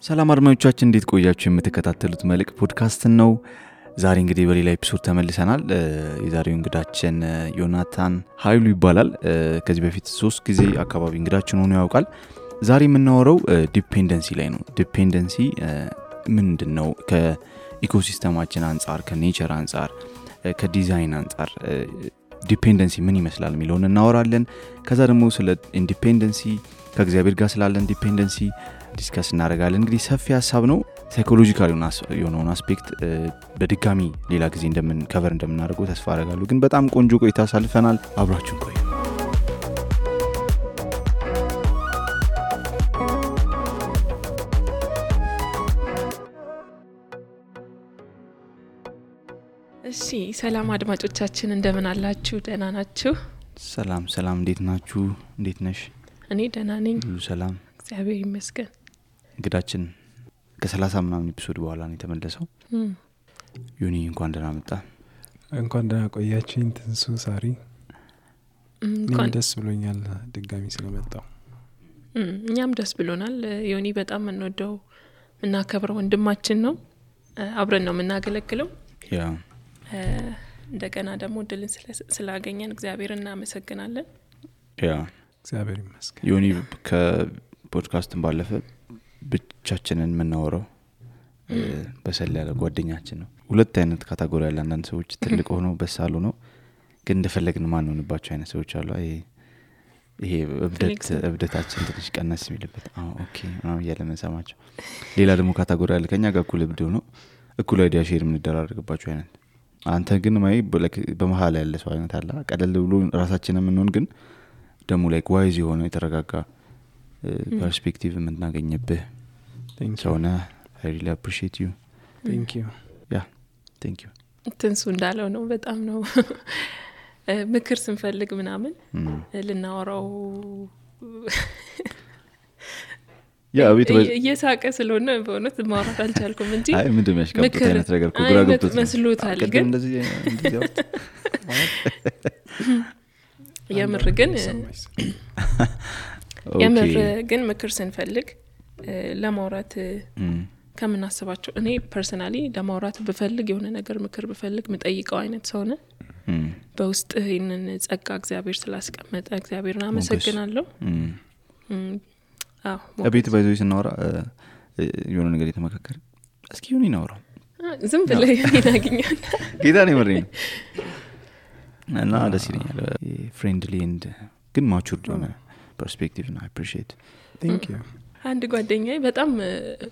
ሰላም አድማጮቻችን እንዴት ቆያችሁ? የምትከታተሉት መልክ ፖድካስት ነው። ዛሬ እንግዲህ በሌላ ኤፒሶድ ተመልሰናል። የዛሬው እንግዳችን ዮናታን ኃይሉ ይባላል። ከዚህ በፊት 3 ጊዜ አካባቢ እንግዳችን ሆኖ ያውቃል። ዛሬ የምናወራው ዲፔንደንሲ ላይ ነው። ዲፔንደንሲ ምንድነው? ከኢኮሲስተማችን አንፃር፣ ከኔቸር አንፃር፣ ከዲዛይን አንፃር ዲፔንደንሲ ምን ይመስላል የሚለውን እናወራለን። ከዛ ደግሞ ስለ ኢንዲፔንደንሲ ከእግዚአብሔር ጋር ስላለን ዲፔንደንሲ ዲስከስ እናደርጋለን። እንግዲህ ሰፊ ሀሳብ ነው። ሳይኮሎጂካል የሆነውን አስፔክት በድጋሚ ሌላ ጊዜ ከቨር እንደምናደርገው ተስፋ አደርጋለሁ። ግን በጣም ቆንጆ ቆይታ አሳልፈናል። አብራችሁን ቆዩ። እሺ፣ ሰላም አድማጮቻችን እንደምን አላችሁ? ደህና ናችሁ? ሰላም እንዴት ናችሁ? እንዴት ነሽ? እኔ ደህና ነኝ። ሁሉ ሰላም እግዚአብሔር ይመስገን። እንግዳችን ከ30 ምናምን ኤፒሶድ በኋላ ነው የተመለሰው። ዮኒ እንኳን ደህና መጣ። እንኳን ደህና ቆያችሁኝ። ትንሱ ሳሪ እንኳን ደስ ብሎኛል ድጋሚ ስለመጣው። እኛም ደስ ብሎናል። ዮኒ በጣም እንወደው እናከብረው ወንድማችን ነው። አብረን ነው የምናገለግለው። እንደገና ደግሞ እድልን ስላገኘን እግዚአብሔርን እናመሰግናለን። እግዚአብሔር ይመስገን። ዮኒ ከፖድካስትን ባለፈ ብቻችንን የምናወራው በሰል ያለ ጓደኛችን ነው። ሁለት አይነት ካቴጎሪ ያለ አንዳንድ ሰዎች ትልቅ ሆነው በሳሉ ነው ግን እንደፈለግን ማን ሆነባቸው አይነት ሰዎች አሉ። ይሄ እብደታችን ትንሽ ቀነስ የሚልበት ኦኬ ነው ያለመሰማቸው። ሌላ ደግሞ ካቴጎሪ ያለ ከኛ ጋር እኩል እብድ ነው እኩል አይዲያ ሼር የምንደራረግባቸው አይነት። አንተ ግን ማይ በመሃል ያለ ሰው አይነት አለ። ቀለል ብሎ ራሳችንን የምንሆን ግን ደግሞ ላይክ ዋይዝ የሆነ የተረጋጋ ፐርስፔክቲቭ የምናገኝበት ሰውና I really appreciate you. Thank you. Yeah, thank you. ትንሱ እንዳለው ነው። በጣም ነው ምክር ስንፈልግ ምናምን ልናወራው እየሳቀ ስለሆነ በእውነት ማውራት አልቻልኩም እንጂ አይ ምንድነው ያሽቃብጥ አይነት ነገር ኩግራ ገብቶት መስሎታል። ግን እንደዚህ ያውት የምር ግን ምክር ስንፈልግ ለማውራት ከምናስባቸው እኔ ፐርሰናሊ ለማውራት ብፈልግ የሆነ ነገር ምክር ብፈልግ ምጠይቀው አይነት ሰው ነኝ። በውስጥ ይሄንን ጸጋ እግዚአብሔር ስላስቀመጠ እግዚአብሔርን አመሰግናለሁ። አቤት ባይዞይ ስናወራ የሆነ ነገር የተመካከረ እስኪ ዮኒ ናውራ ዝም ብለህ ይናገኛል ጌታ ነው መረኝ እና ደስ ይለኛል። ፍሬንድሊ ኤንድ ግን ማቹርድ የሆነ ፐርስፔክቲቭ ነው። I appreciate. Thank you. አንድ ጓደኛዬ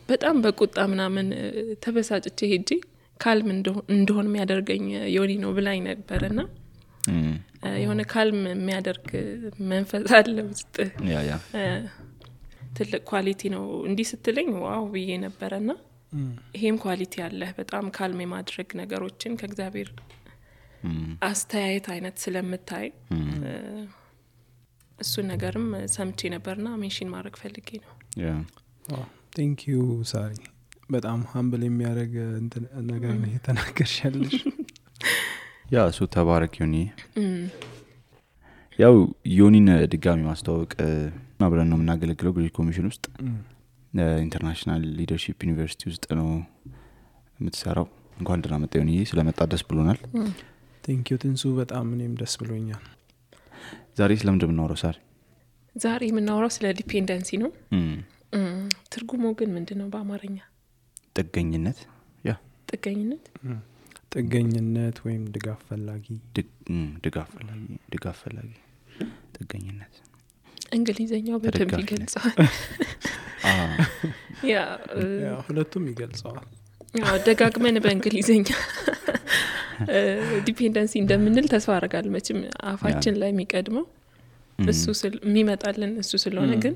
በጣም በቁጣ ምናምን ተበሳጭቼ ሄጄ ካልም እንደሆነ የሚያደርገኝ ዮኒ ነው ብላኝ ነበርና የሆነ ካልም የሚያደርግ መንፈስ አለ ውስጥ ያ ትልቅ ኳሊቲ ነው እንዲህ ስትለኝ ዋው ብዬ ነበርና ይሄም ኳሊቲ አለ። በጣም ካልም የማድረግ ነገሮችን ከእግዚአብሔር አስተያየት አይነት ስለምታይ እሱ ነገርም ሰምቼ ነበርና ሜንሽን ማድረግ ፈልጌ ነው። Thank you ሳሪ። በጣም humble የሚያደርግ ነገር ነው የተናገርሻለሽ። እሱ ተባረክ ዮኒ። ያው ዮኒን ድጋሚ ማስተዋወቅ አብረን ነው የምናገለግለው ግሬት ኮሚሽን ውስጥ ኢንተርናሽናል ሊደርሺፕ ዩኒቨርሲቲ ውስጥ ነው የምትሰራው። እንኳን ደህና መጣ ዮኒ። ስለመጣ ደስ ብሎናል። Thank you ትንሱ። በጣም እኔም ደስ ብሎኛል። ዛሬ ስለምንድን ነው የምናወራው ሳሪ? ዛሬ የምናወራው ስለ ዲፔንደንሲ ነው። ትርጉሙ ግን ምንድነው በአማርኛ? ጥገኝነት ጥገኝነት ወይም ድጋፍ ፈላጊ ጥገኝነት እንግሊዘኛው በደንብ ይገልጻል። ሁለቱም ይገልጻል። ደጋግመን በእንግሊዘኛ ዲፔንደንሲ እንደምንል ተስፋ አደርጋለሁ። መቼም አፋችን ላይ የሚቀድመው እሱ የሚመጣልን እሱ ስለሆነ ግን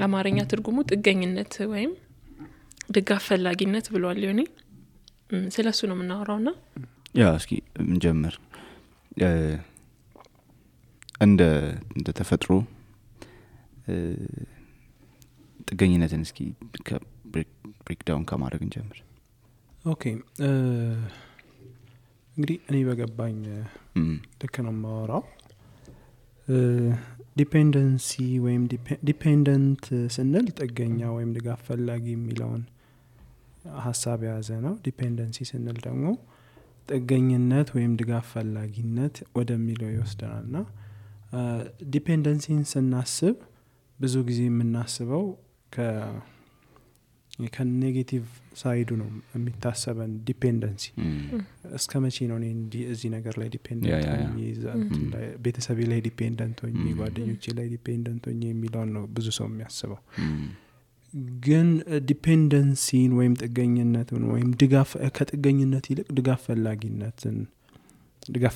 አማርኛ ትርጉሙ ጥገኝነት ወይም ድጋፍ ፈላጊነት ብሏል ዮኒ። ስለሱ ነው የምናወራውና እስኪ እንጀምር። እንደ ተፈጥሮ ጥገኝነትን እስኪ ብሬክ ዳውን ከማድረግ እንጀምር። ኦኬ እንግዲህ እኔ በገባኝ ልክ ነው የማወራው። ዲፔንደንሲ ወይም ዲፔንደንት ስንል ጥገኛ ወይም ድጋፍ ፈላጊ የሚለውን ሀሳብ የያዘ ነው። ዲፔንደንሲ ስንል ደግሞ ጥገኝነት ወይም ድጋፍ ፈላጊነት ወደሚለው ይወስደናልና ዲፔንደንሲን ስናስብ ብዙ ጊዜ የምናስበው ከኔጌቲቭ ሳይዱ ነው የሚታሰበን። ዲፔንደንሲ እስከ መቼ ነው እኔ እዚህ ነገር ላይ ዲፔንደንት ሆኜ ቤተሰቤ ላይ ዲፔንደንት ሆኜ ጓደኞቼ ላይ ዲፔንደንት ሆኜ የሚለውን ነው ብዙ ሰው የሚያስበው። ግን ዲፔንደንሲን ወይም ጥገኝነትን ወይም ድጋፍ ከጥገኝነት ይልቅ ድጋፍ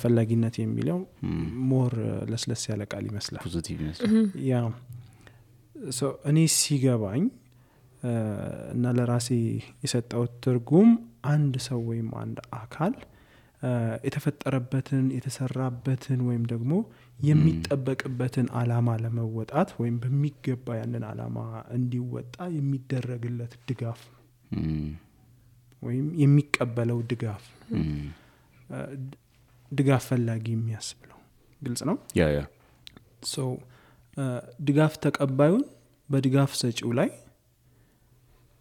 ፈላጊነት የሚለው ሞር ለስለስ ያለ ቃል ይመስላል፣ ፖዚቲቭ ይመስላል። ያ እኔ ሲገባኝ እና ለራሴ የሰጠው ትርጉም አንድ ሰው ወይም አንድ አካል የተፈጠረበትን የተሰራበትን ወይም ደግሞ የሚጠበቅበትን አላማ ለመወጣት ወይም በሚገባ ያንን አላማ እንዲወጣ የሚደረግለት ድጋፍ ወይም የሚቀበለው ድጋፍ ፈላጊ የሚያስብለው ግልጽ ነው። ድጋፍ ተቀባዩን በድጋፍ ሰጪው ላይ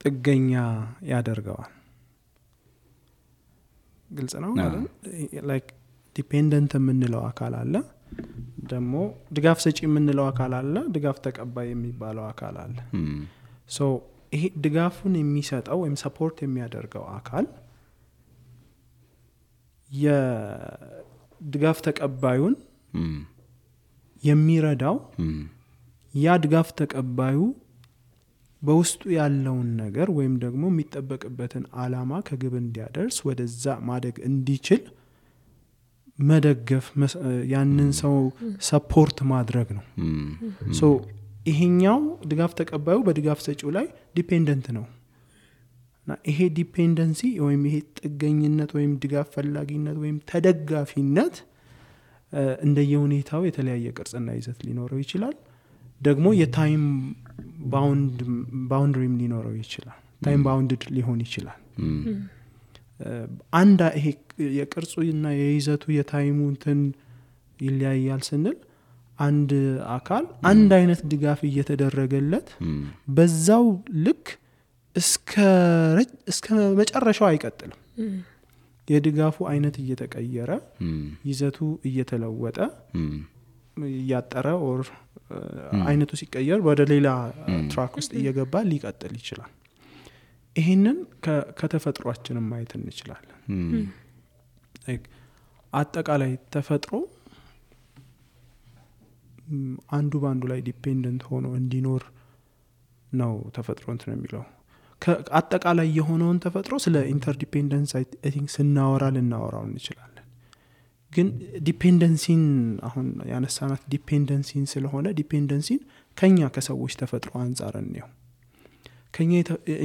ጥገኛ ያደርገዋል። ግልጽ ነው ማለት ላይክ ዲፔንደንት የምንለው አካል አለ፣ ደግሞ ድጋፍ ሰጪ የምንለው አካል አለ፣ ድጋፍ ተቀባይ የሚባለው አካል አለ። ይሄ ድጋፉን የሚሰጠው ወይም ሰፖርት የሚያደርገው አካል የድጋፍ ተቀባዩን የሚረዳው ያ ድጋፍ ተቀባዩ በውስጡ ያለውን ነገር ወይም ደግሞ የሚጠበቅበትን አላማ ከግብ እንዲያደርስ ወደዛ ማደግ እንዲችል መደገፍ፣ ያንን ሰው ሰፖርት ማድረግ ነው። ይሄኛው ድጋፍ ተቀባዩ በድጋፍ ሰጪው ላይ ዲፔንደንት ነው እና ይሄ ዲፔንደንሲ ወይም ይሄ ጥገኝነት ወይም ድጋፍ ፈላጊነት ወይም ተደጋፊነት እንደየሁኔታው የተለያየ ቅርጽና ይዘት ሊኖረው ይችላል። ደግሞ የታይም ባውንድሪም ሊኖረው ይችላል። ታይም ባውንድድ ሊሆን ይችላል። አንድ ይሄ የቅርጹና የይዘቱ የታይሙ እንትን ይለያያል ስንል አንድ አካል አንድ አይነት ድጋፍ እየተደረገለት በዛው ልክ እስከ መጨረሻው አይቀጥልም። የድጋፉ አይነት እየተቀየረ ይዘቱ እየተለወጠ እያጠረ ኦር አይነቱ ሲቀየር ወደ ሌላ ትራክ ውስጥ እየገባ ሊቀጥል ይችላል። ይሄንን ከተፈጥሯችንም ማየት እንችላለን። አጠቃላይ ተፈጥሮ አንዱ ባንዱ ላይ ዲፔንደንት ሆኖ እንዲኖር ነው ተፈጥሮ እንትን የሚለው። አጠቃላይ የሆነውን ተፈጥሮ ስለ ኢንተርዲፔንደንስ አይ ቲንክ ልናወራው እንችላለን። ግን ዲፔንደንሲን አሁን ያነሳናት ዲፔንደንሲን ስለሆነ ዲፔንደንሲን ከኛ ከሰዎች ተፈጥሮ አንጻር ነው።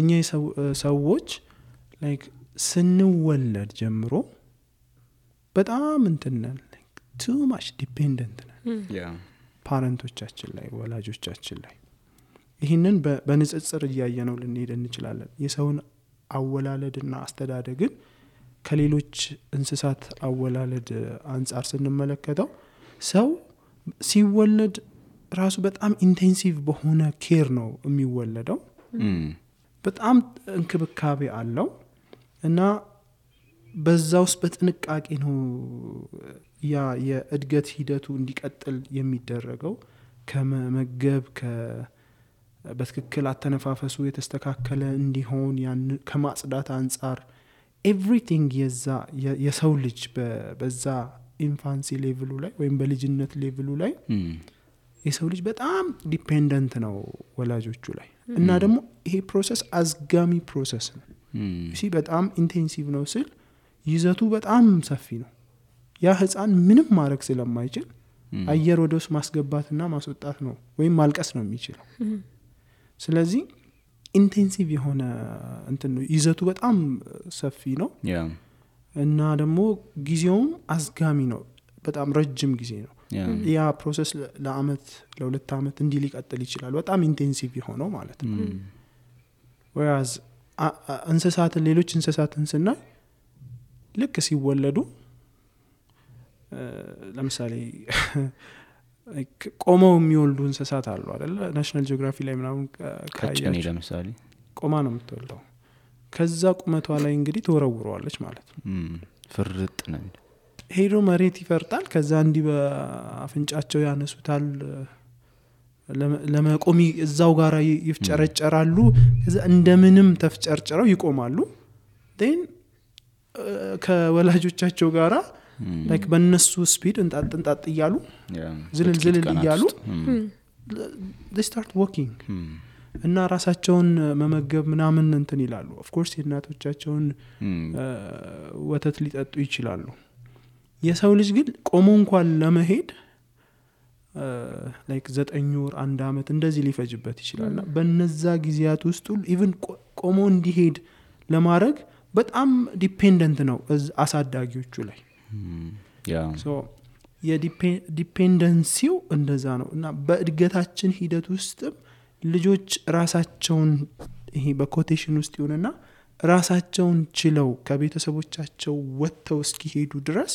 እኛ ሰዎች ላይክ ስንወለድ ጀምሮ በጣም እንትነን ቱ ማች ዲፔንደንት ነን ፓረንቶቻችን ላይ ወላጆቻችን ላይ። ይህንን በንጽጽር እያየነው ልንሄድ እንችላለን። የሰውን አወላለድና አስተዳደግን ከሌሎች እንስሳት አወላለድ አንጻር ስንመለከተው ሰው ሲወለድ ራሱ በጣም ኢንቴንሲቭ በሆነ ኬር ነው የሚወለደው። በጣም እንክብካቤ አለው እና በዛ ውስጥ በጥንቃቄ ነው ያ የእድገት ሂደቱ እንዲቀጥል የሚደረገው። ከመመገብ በትክክል አተነፋፈሱ የተስተካከለ እንዲሆን ያን ከማጽዳት አንጻር ኤቭሪቲንግ የሰው ልጅ በዛ ኢንፋንሲ ሌቭሉ ላይ ወይም በልጅነት ሌቭሉ ላይ የሰው ልጅ በጣም ዲፔንደንት ነው ወላጆቹ ላይ። እና ደግሞ ይሄ ፕሮሰስ አዝጋሚ ፕሮሰስ ነው። በጣም ኢንቴንሲቭ ነው ስል ይዘቱ በጣም ሰፊ ነው። ያ ህፃን ምንም ማድረግ ስለማይችል አየር ወደ ውስጥ ማስገባትና ማስወጣት ነው ወይም ማልቀስ ነው የሚችለው። ስለዚህ ኢንቴንሲቭ የሆነ እንትን ነው፣ ይዘቱ በጣም ሰፊ ነው እና ደግሞ ጊዜውም አዝጋሚ ነው፣ በጣም ረጅም ጊዜ ነው። ያ ፕሮሰስ ለአመት ለሁለት አመት እንዲህ ሊቀጥል ይችላል፣ በጣም ኢንቴንሲቭ የሆነው ማለት ነው። ወያዝ ሌሎች እንስሳትን ስናይ ልክ ሲወለዱ ለምሳሌ ቆመው የሚወልዱ እንስሳት አሉ አይደል? ናሽናል ጂኦግራፊ ላይ ምናምን ቀጭኔ ለምሳሌ ቆማ ነው የምትወልደው። ከዛ ቁመቷ ላይ እንግዲህ ትወረውረዋለች ማለት ነው። ፍርጥ ነው ሄዶ መሬት ይፈርጣል። ከዛ እንዲህ በአፍንጫቸው ያነሱታል። ለመቆም እዛው ጋራ ይፍጨረጨራሉ። ከዛ እንደምንም ተፍጨርጨረው ይቆማሉ። ዴን ከወላጆቻቸው ጋራ ላይክ በእነሱ ስፒድ እንጣጥ እያሉ ዝልል እያሉ they start walking እና ራሳቸውን መመገብ ምናምን እንትን ይላሉ። ኦፍ ኮርስ የእናቶቻቸውን ወተት ሊጠጡ ይችላሉ። የሰው ልጅ ግን ቆሞ እንኳን ለመሄድ ላይክ 9 ወር 1 አመት እንደዚህ ሊፈጅበት ይችላልና በነዛ ጊዜያት ውስጥ ኢቭን ቆሞ እንዲሄድ ለማድረግ በጣም ዲፔንደንት ነው አሳዳጊዎቹ ላይ። ሶ የዲፔንደንሲው እንደዛ ነው። እና በእድገታችን ሂደት ውስጥ ልጆች ራሳቸውን ይሄ በኮቴሽን ውስጥ ይሆንና ራሳቸውን ችለው ከቤተሰቦቻቸው ወጥተው እስኪሄዱ ድረስ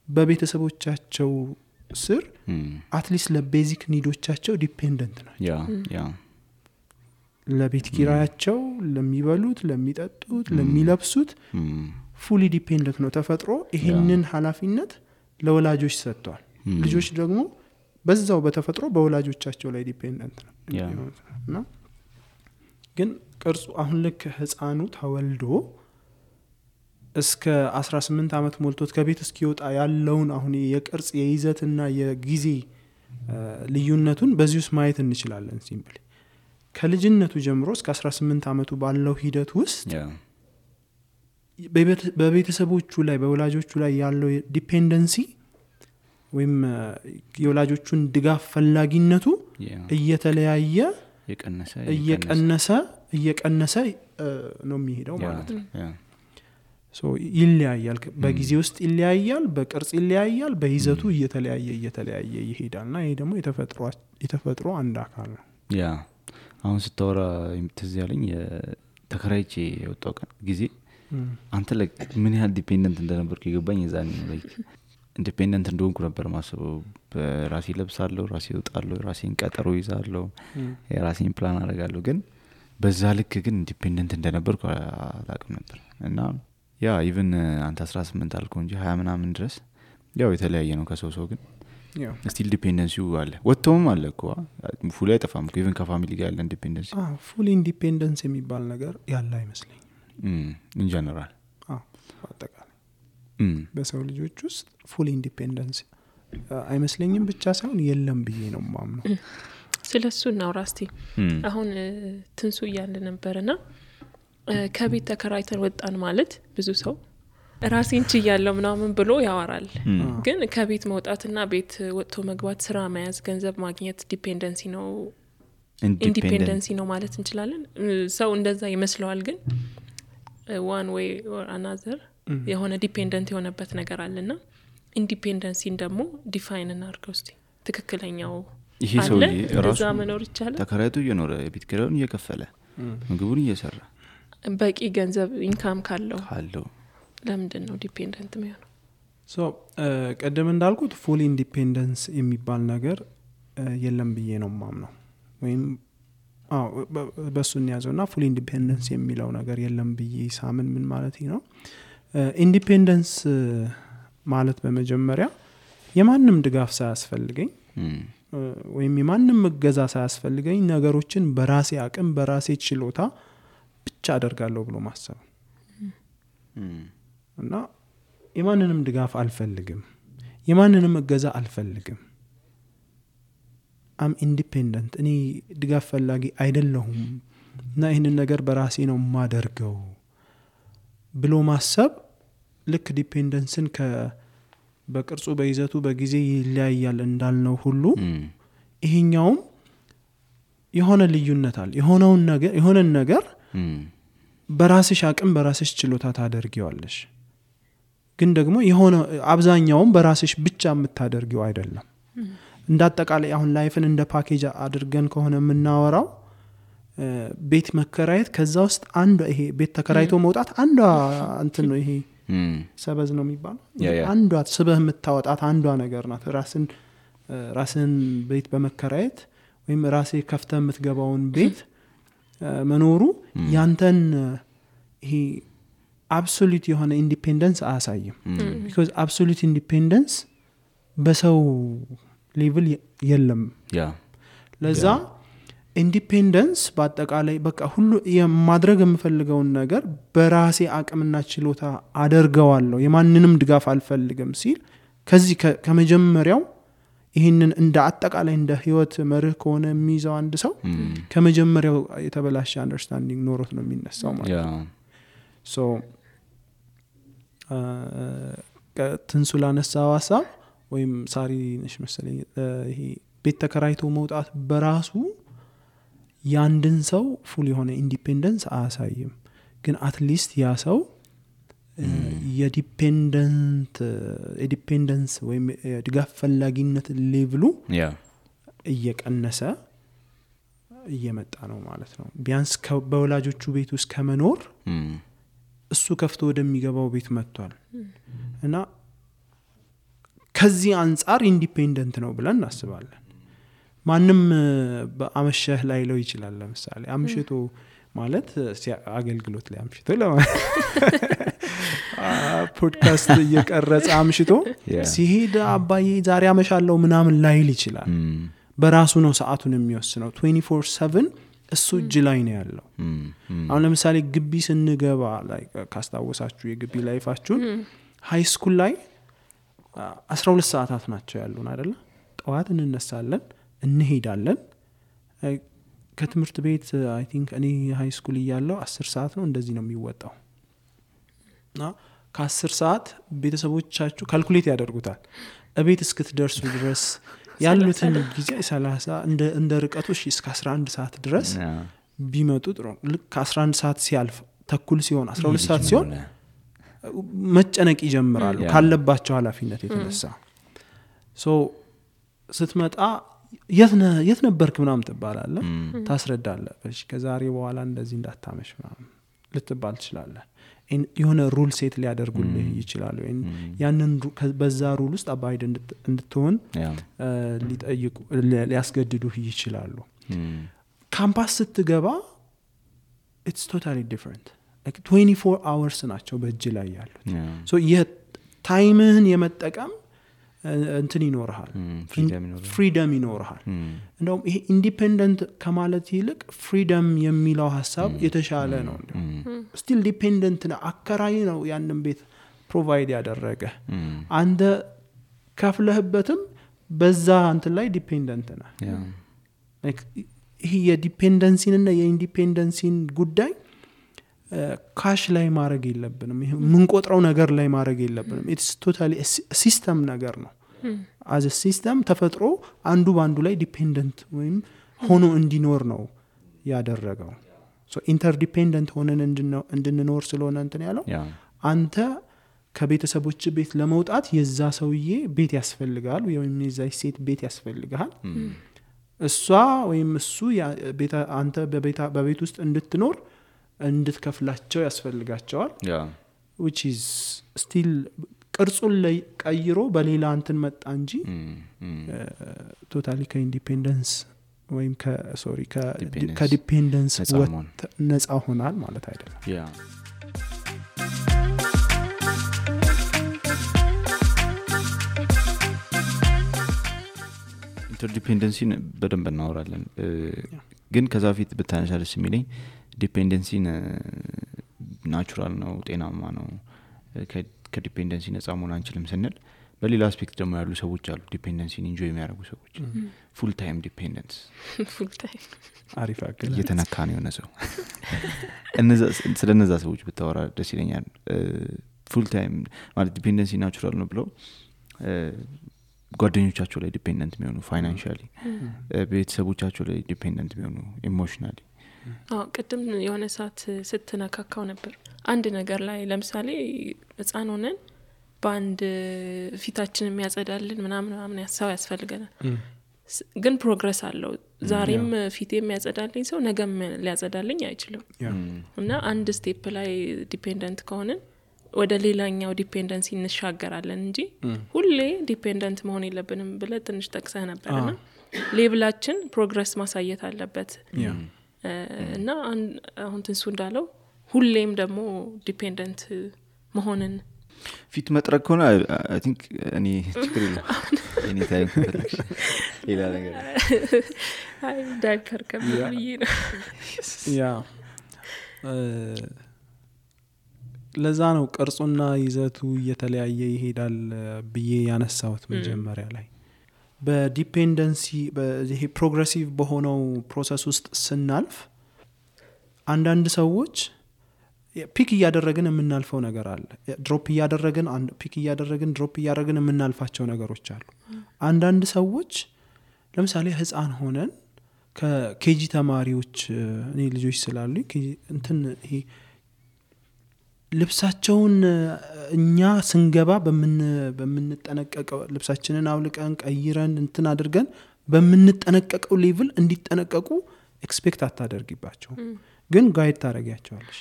በቤተሰቦቻቸው ስር አትሊስት ለቤዚክ ኒዶቻቸው ዲፔንደንት ናቸው። ለቤት ኪራያቸው፣ ለሚበሉት፣ ለሚጠጡት፣ ለሚለብሱት ፉሊ ዲፔንደንት ነው ተፈጥሮ። ይሄንን ኃላፊነት ለወላጆች ሰጥቷል። ልጆች ደግሞ በዛው በተፈጥሮ በወላጆቻቸው ላይ ዲፔንደንት ነው። ግን ቅርጹ አሁን ልክ ህፃኑ ተወልዶ እስከ 18 አመት ሞልቶት ከቤት እስኪወጣ ያለውን አሁን የቅርጽ የይዘትና የጊዜ ልዩነቱን በዚህ ውስጥ ማየት እንችላለን። ሲምፕሊ ከልጅነቱ ጀምሮ እስከ 18 አመቱ ባለው ሂደት ውስጥ በቤተሰቦቹ ላይ በወላጆቹ ላይ ያለው ዲፔንደንሲ ወይም የወላጆቹን ድጋፍ ፈላጊነቱ እየተለያየ እየቀነሰ ነው የሚሄደው ማለት ነው። ሶ ይለያያል። በጊዜ ውስጥ ይለያያል፣ በቅርጽ ይለያያል፣ በይዘቱ እየተለያየ ይሄዳልና ይሄ ደግሞ የተፈጥሮ አንድ አካል ነው። አሁን ስታወራ ትዝ ያለኝ ተከራይቼ የወጣው ጊዜ አንተ ምን ያህል ዲፔንደንት እንደነበርኩ ይገባኝ። የዛኔ ነው ኢንዲፔንደንት እንደሆንኩ ነበር ማስበው። በራሴ ለብሳለሁ፣ ራሴ እወጣለሁ፣ ራሴን ቀጠሮ ይዛለሁ፣ የራሴን ፕላን አደርጋለሁ። ግን በዛ ልክ ግን ኢንዲፔንደንት እንደነበርኩ አላውቅም ነበር። እና ኢቭን አንተ 18 አልከው እንጂ 20 ምናምን ድረስ የተለያየ ነው ከሰው ግን ስቲል ዲፔንደንሲው አለ። ወጥቶም አለ እኮ ፉል አይጠፋም እኮ ኢቭን ከፋሚሊ ጋር ያለ ኢንዲፔንደንሲ። ፉል ኢንዲፔንደንስ የሚባል ነገር ያለ አይመስለኝም ኢን ጀነራል። አጠቃላይ በሰው ልጆች ውስጥ ፉል ኢንዲፔንደንስ አይመስለኝም ብቻ ሳይሆን የለም ብዬ ነው ማምነው። ስለሱ እናውራ እስቲ። አሁን ትንሱ እያለ ነበርና ከቤት ተከራይተን ወጣን ማለት ብዙ ሰው ራሴን ችያለሁ ምናምን ብሎ ያወራል። ግን ከቤት መውጣትና ቤት ወጥቶ መግባት፣ ስራ መያዝ፣ ገንዘብ ማግኘት ዲፔንደንሲ ነው ኢንዲፔንደንሲ ነው ማለት እንችላለን። ሰው እንደዛ ይመስለዋል። ግን one way or another የሆነ ዲፔንደንት የሆነበት ነገር አለና ኢንዲፔንደንሲን ደግሞ ዲፋይን እናድርገው እስቲ። ትክክለኛው ይሄ ሰው ራሱ መኖር ይችላል። ተከራይቶ እየኖረ ቤት ኪራዩን እየከፈለ ምግቡን እየሰራ በቂ ገንዘብ ኢንካም ካለው ለምንድን ነው ዲፔንደንት የሚሆነው? ሶ ቀደም እንዳልኩት ፉል ኢንዲፔንደንስ የሚባል ነገር የለም ብዬ ነው ማምነው። ወይም በሱን ያዘውና ፉል ኢንዲፔንደንስ የሚለው ነገር የለም ብዬ ሳምን ምን ማለት ነው? ኢንዲፔንደንስ ማለት በመጀመሪያ የማንም ድጋፍ ሳያስፈልገኝ ወይም የማንም እገዛ ሳያስፈልገኝ ነገሮችን በራሴ አቅም በራሴ ችሎታ ብቻ አደርጋለሁ ብሎ ማሰብ እና የማንንም ድጋፍ አልፈልግም፣ የማንንም እገዛ አልፈልግም። አም ኢንዲፔንደንት፣ እኔ ድጋፍ ፈላጊ አይደለሁም እና ይህንን ነገር በራሴ ነው ማደርገው ብሎ ማሰብ ልክ ዲፔንደንስን በቅርጹ በይዘቱ በጊዜ ይለያያል እንዳልነው ሁሉ ይሄኛውም የሆነ ልዩነት አለ። የሆነን ነገር በራስሽ አቅም በራስሽ ችሎታ ታደርጊዋለሽ። ግን ደግሞ የሆነ አብዛኛውም በራስሽ ብቻ የምታደርጊው አይደለም። እንዳጠቃላይ አሁን ላይፍን እንደ ፓኬጅ አድርገን ከሆነ የምናወራው ቤት መከራየት ከዛ ውስጥ አንዱ ይሄ ቤት ተከራይቶ መውጣት አንዷ እንትን ነው። ይሄ ሰበዝ ነው የሚባለው። አንዷ ስበህ የምታወጣት አንዷ ነገር ናት። ራስን ራስን ቤት በመከራየት ወይም ራሴ ከፍተ የምትገባውን ቤት መኖሩ ያንተን ይሄ አብሶሉት የሆነ ኢንዲፔንደንስ አያሳይም because absolute independence በሰው ሌቭል የለም ለዛ ኢንዲፔንደንስ በአጠቃላይ በቃ ሁሉ የማድረግ የምፈልገውን ነገር በራሴ አቅምና ችሎታ አደርገዋለሁ የማንንም ድጋፍ አልፈልግም ሲል ከዚህ ከመጀመሪያው ይሄንን እንደ አጠቃላይ እንደ ህይወት መርህ ከሆነ የሚይዘው አንድ ሰው ከመጀመሪያው የተበላሸ አንደርስታንዲንግ ኖሮት ነው የሚነሳው ማለት ነው ሶ ትንሱላ ነሳው ሐሳብ ወይም ሳሪ ነሽ መሰለኝ ይሄ ቤት ተከራይቶ መውጣት በራሱ ያንድን ሰው ፉል የሆነ ኢንዲፔንደንስ አያሳይም ግን አትሊስት ያ ሰው የዲፔንደንስ ወይም ድጋፍ ፈላጊነት ሌቭሉ እየቀነሰ እየመጣ ነው ማለት ነው ቢያንስ በወላጆቹ ቤት ውስጥ ከመኖር እሱ ከፍቶ ወደሚገባው ቤት መጥቷል እና ከዚህ አንፃር ኢንዲፔንደንት ነው ብለን እናስባለን ማንም በአመሸህ ላይ ለው ይችላል ለምሳሌ አምሽቶ ማለት አገልግሎት ላይ አምሽቶ ፖድካስት እየቀረጸ አምሽቶ ሲሄድ አባዬ ዛሬ አመሻለሁ ምናምን ላይል ይችላል በራሱ ነው ሰዓቱን የሚወስነው 24/7 እሱ እጅ ላይ ነው ያለው አሁን ለምሳሌ ግቢ ስንገባ ላይ ካስታወሳችሁ የግቢ ላይፋችሁን ሃይ ስኩል ላይ 12 ሰዓታት ናቸው ያሉን አይደለ ጠዋት እንነሳለን እንሄዳለን ከትምህርት ቤት አይ ቲንክ እኔ ሃይ ስኩል እያለሁ 10 ሰዓት ነው እንደዚህ ነው የሚወጣው እና ከ10 ሰዓት ቤተሰቦቻችሁ ካልኩሌት ያደርጉታል እቤት እስክትደርሱ ድረስ ያሉትን ጊዜ 30 እንደ ርቀቱ እስከ 11 ሰዓት ድረስ ቢመጡ ጥሩ ልክ 11 ሰዓት ሲያልፍ ተኩል ሲሆን 12 ሰዓት ሲሆን መጨነቅ ይጀምራሉ ካለባቸው ኃላፊነት የተነሳ ሶ ስትመጣ የት ነበርክ ምናምን ትባላለህ ታስረዳለህ እሺ ከዛሬ በኋላ እንደዚህ እንዳታመሽ ምናምን ልትባል ትችላለህ የሆነ ሩል ሴት ሊያደርጉልህ ይችላሉ ያንን በዛ ሩል ውስጥ አባይድ እንድትሆን ሊጠይቁ ሊያስገድዱህ ይችላሉ ካምፓስ ስትገባ it's totally different like 24 hours ናቸው በእጅ ላይ ያሉት so የታይምህን የመጠቀም እንትን ይኖርሃል ፍሪደም ይኖርሃል እንደውም ይሄ ኢንዲፔንደንት ከማለት ይልቅ ፍሪደም የሚለው ሐሳብ የተሻለ ነው ስቲል ዲፔንደንት ነው አከራይ ነው ያንን ቤት ፕሮቫይድ ያደረገ አንተ ከፍለህበትም በዛ እንትን ላይ ዲፔንደንት ነህ like ይሄ የዲፔንደንሲን እና የኢንዲፔንደንሲን ጉዳይ ካሽ ላይ ማድረግ የለብንም ይሄ ምን ቆጥረው ነገር ላይ ማድረግ የለብንም it's totally ሲስተም ነገር ነው as a system ተፈጥሮ አንዱ ባንዱ ላይ ዲፔንደንት ወይም ሆኖ እንዲኖር ነው ያደረገው so interdependent ሆነን እንድንኖር ስለሆነ እንትን ያለው አንተ ከቤተሰቦች ቤት ለመውጣት የዛ ሰውዬ ቤት ያስፈልጋል ወይም የዛ ሴት ቤት ያስፈልጋል እሷ ወይም እሱ አንተ በቤት ውስጥ እንድትኖር እንድትከፍላቸው ያስፈልጋቸዋል which is still ቅርጹን ላይ ቀይሮ በሌላ እንትን መጣ እንጂ ቶታሊ ከኢንዲፔንደንስ ወይም ከዲፔንደንስ ነፃ ሆናል ማለት አይደለም ኢንተርዲፔንደንሲን በደንብ እናወራለን ግን ከዛ ፊት ብታነሳለስ የሚለኝ ዲፔንደንሲን ናቹራል ነው ጤናማ ነው ከዲፔንደንሲ ነፃ መሆን አንችልም ስንል በሌላ አስፔክት ደግሞ ያሉ ሰዎች አሉ ዲፔንደንሲን ኢንጆይ የሚያደርጉ ሰዎች ፉል ታይም ዲፔንደንስ ፉል ታይም አሪፍ አገል እየተነካ ነው የሆነ ሰው ስለነዛ ሰዎች ብታወራ ደስ ይለኛል ፉል ታይም ማለት ዲፔንደንሲ ናቹራል ነው ብለው ጓደኞቻቸው ላይ ዲፔንደንት የሚሆኑ ፋይናንሻሊ ቤተሰቦቻቸው ላይ ዲፔንደንት የሚሆኑ ኢሞሽናሊ ቅድም የሆነ ሰዓት ስትነካካው ነበር አንድ ነገር ላይ ለምሳሌ ህፃን ሆነን በአንድ ፊታችን የሚያጸዳልን ምናምን ያሳው ያስፈልገናል ግን ፕሮግረስ አለው ዛሬም ፊቴ የሚያጸዳልኝ ሰው ነገም ሊያጸዳልኝ አይችልም እና አንድ ስቴፕ ላይ ዲፔንደንት ከሆነን ወደ ሌላኛው ዲፔንደንሲ እንሻገራለን እንጂ ሁሌ ዲፔንደንት መሆን የለብንም ብለ ትንሽ ጠቅሰህ ነበርና ሌቭላችን ፕሮግረስ ማሳየት አለበት እና አሁን ትንሱ እንዳለው ሁሌም ደግሞ ዲፔንደንት መሆንን ፊት መጥረግ ከሆነ አይ ቲንክ እኔ ችግር የለም እኔ ታይም ፈልክሽ ሌላ ነገር አይ ዳይፐር ከብዬ ነው ያ ለዛ ነው ቅርጹና ይዘቱ እየተለያየ ይሄዳል ብዬ ያነሳሁት መጀመሪያ ላይ በዲፔንደንሲ በዚህ ፕሮግሬሲቭ በሆነው ፕሮሰስ ውስጥ ስናልፍ አንዳንድ ሰዎች ፒክ እያደረግን የምናልፈው ነገር አለ ድሮፕ እያደረግን ፒክ እያደረግን ድሮፕ እያደረግን የምናልፋቸው ነገሮች አሉ አንዳንድ ሰዎች ለምሳሌ ህፃን ሆነን ከኬጂ ተማሪዎች እኔ ልጆች ስላሉ እንትን ይሄ ልብሳቸውን እኛ ስንገባ በምንጠነቀቀው ልብሳችንን አውልቀን ቀይረን እንትን አድርገን በምንጠነቀቀው ሌቭል እንዲጠነቀቁ ኤክስፔክት አታደርጊባቸው ግን ጋይድ ታረጋቸዋለሽ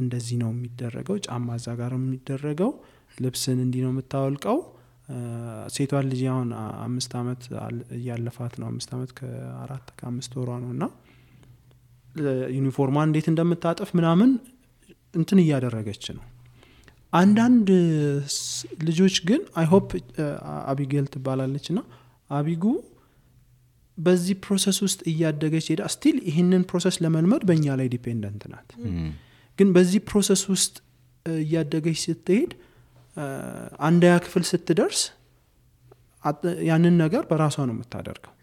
እንደዚህ ነው የሚደረገው ጫማ እዛ ጋር የሚደረገው ልብስን እንዲህ ነው የምታወልቀው ሴቷ ልጅ አሁን 5 አመት ያለፋት ነው 5 አመት ከ4-5 ወሯ ነውና ዩኒፎርሟን እንዴት እንደምታጠፍ ምናምን እንትን እያደረገች ነው አንዳንድ ልጆች ግን አይ ሆፕ አቢጌል ትባላለችና አቢጉ በዚህ ፕሮሰስ ውስጥ እያደገች ሄዳ ስቲል ይሄንን ፕሮሰስ ለመልመድ በእኛ ላይ ዲፔንደንት ናት ግን በዚህ ፕሮሰስ ውስጥ እያደገች ስትሄድ አንደኛ ክፍል ስትደርስ ያንን ነገር በራሷ ነው የምታደርገው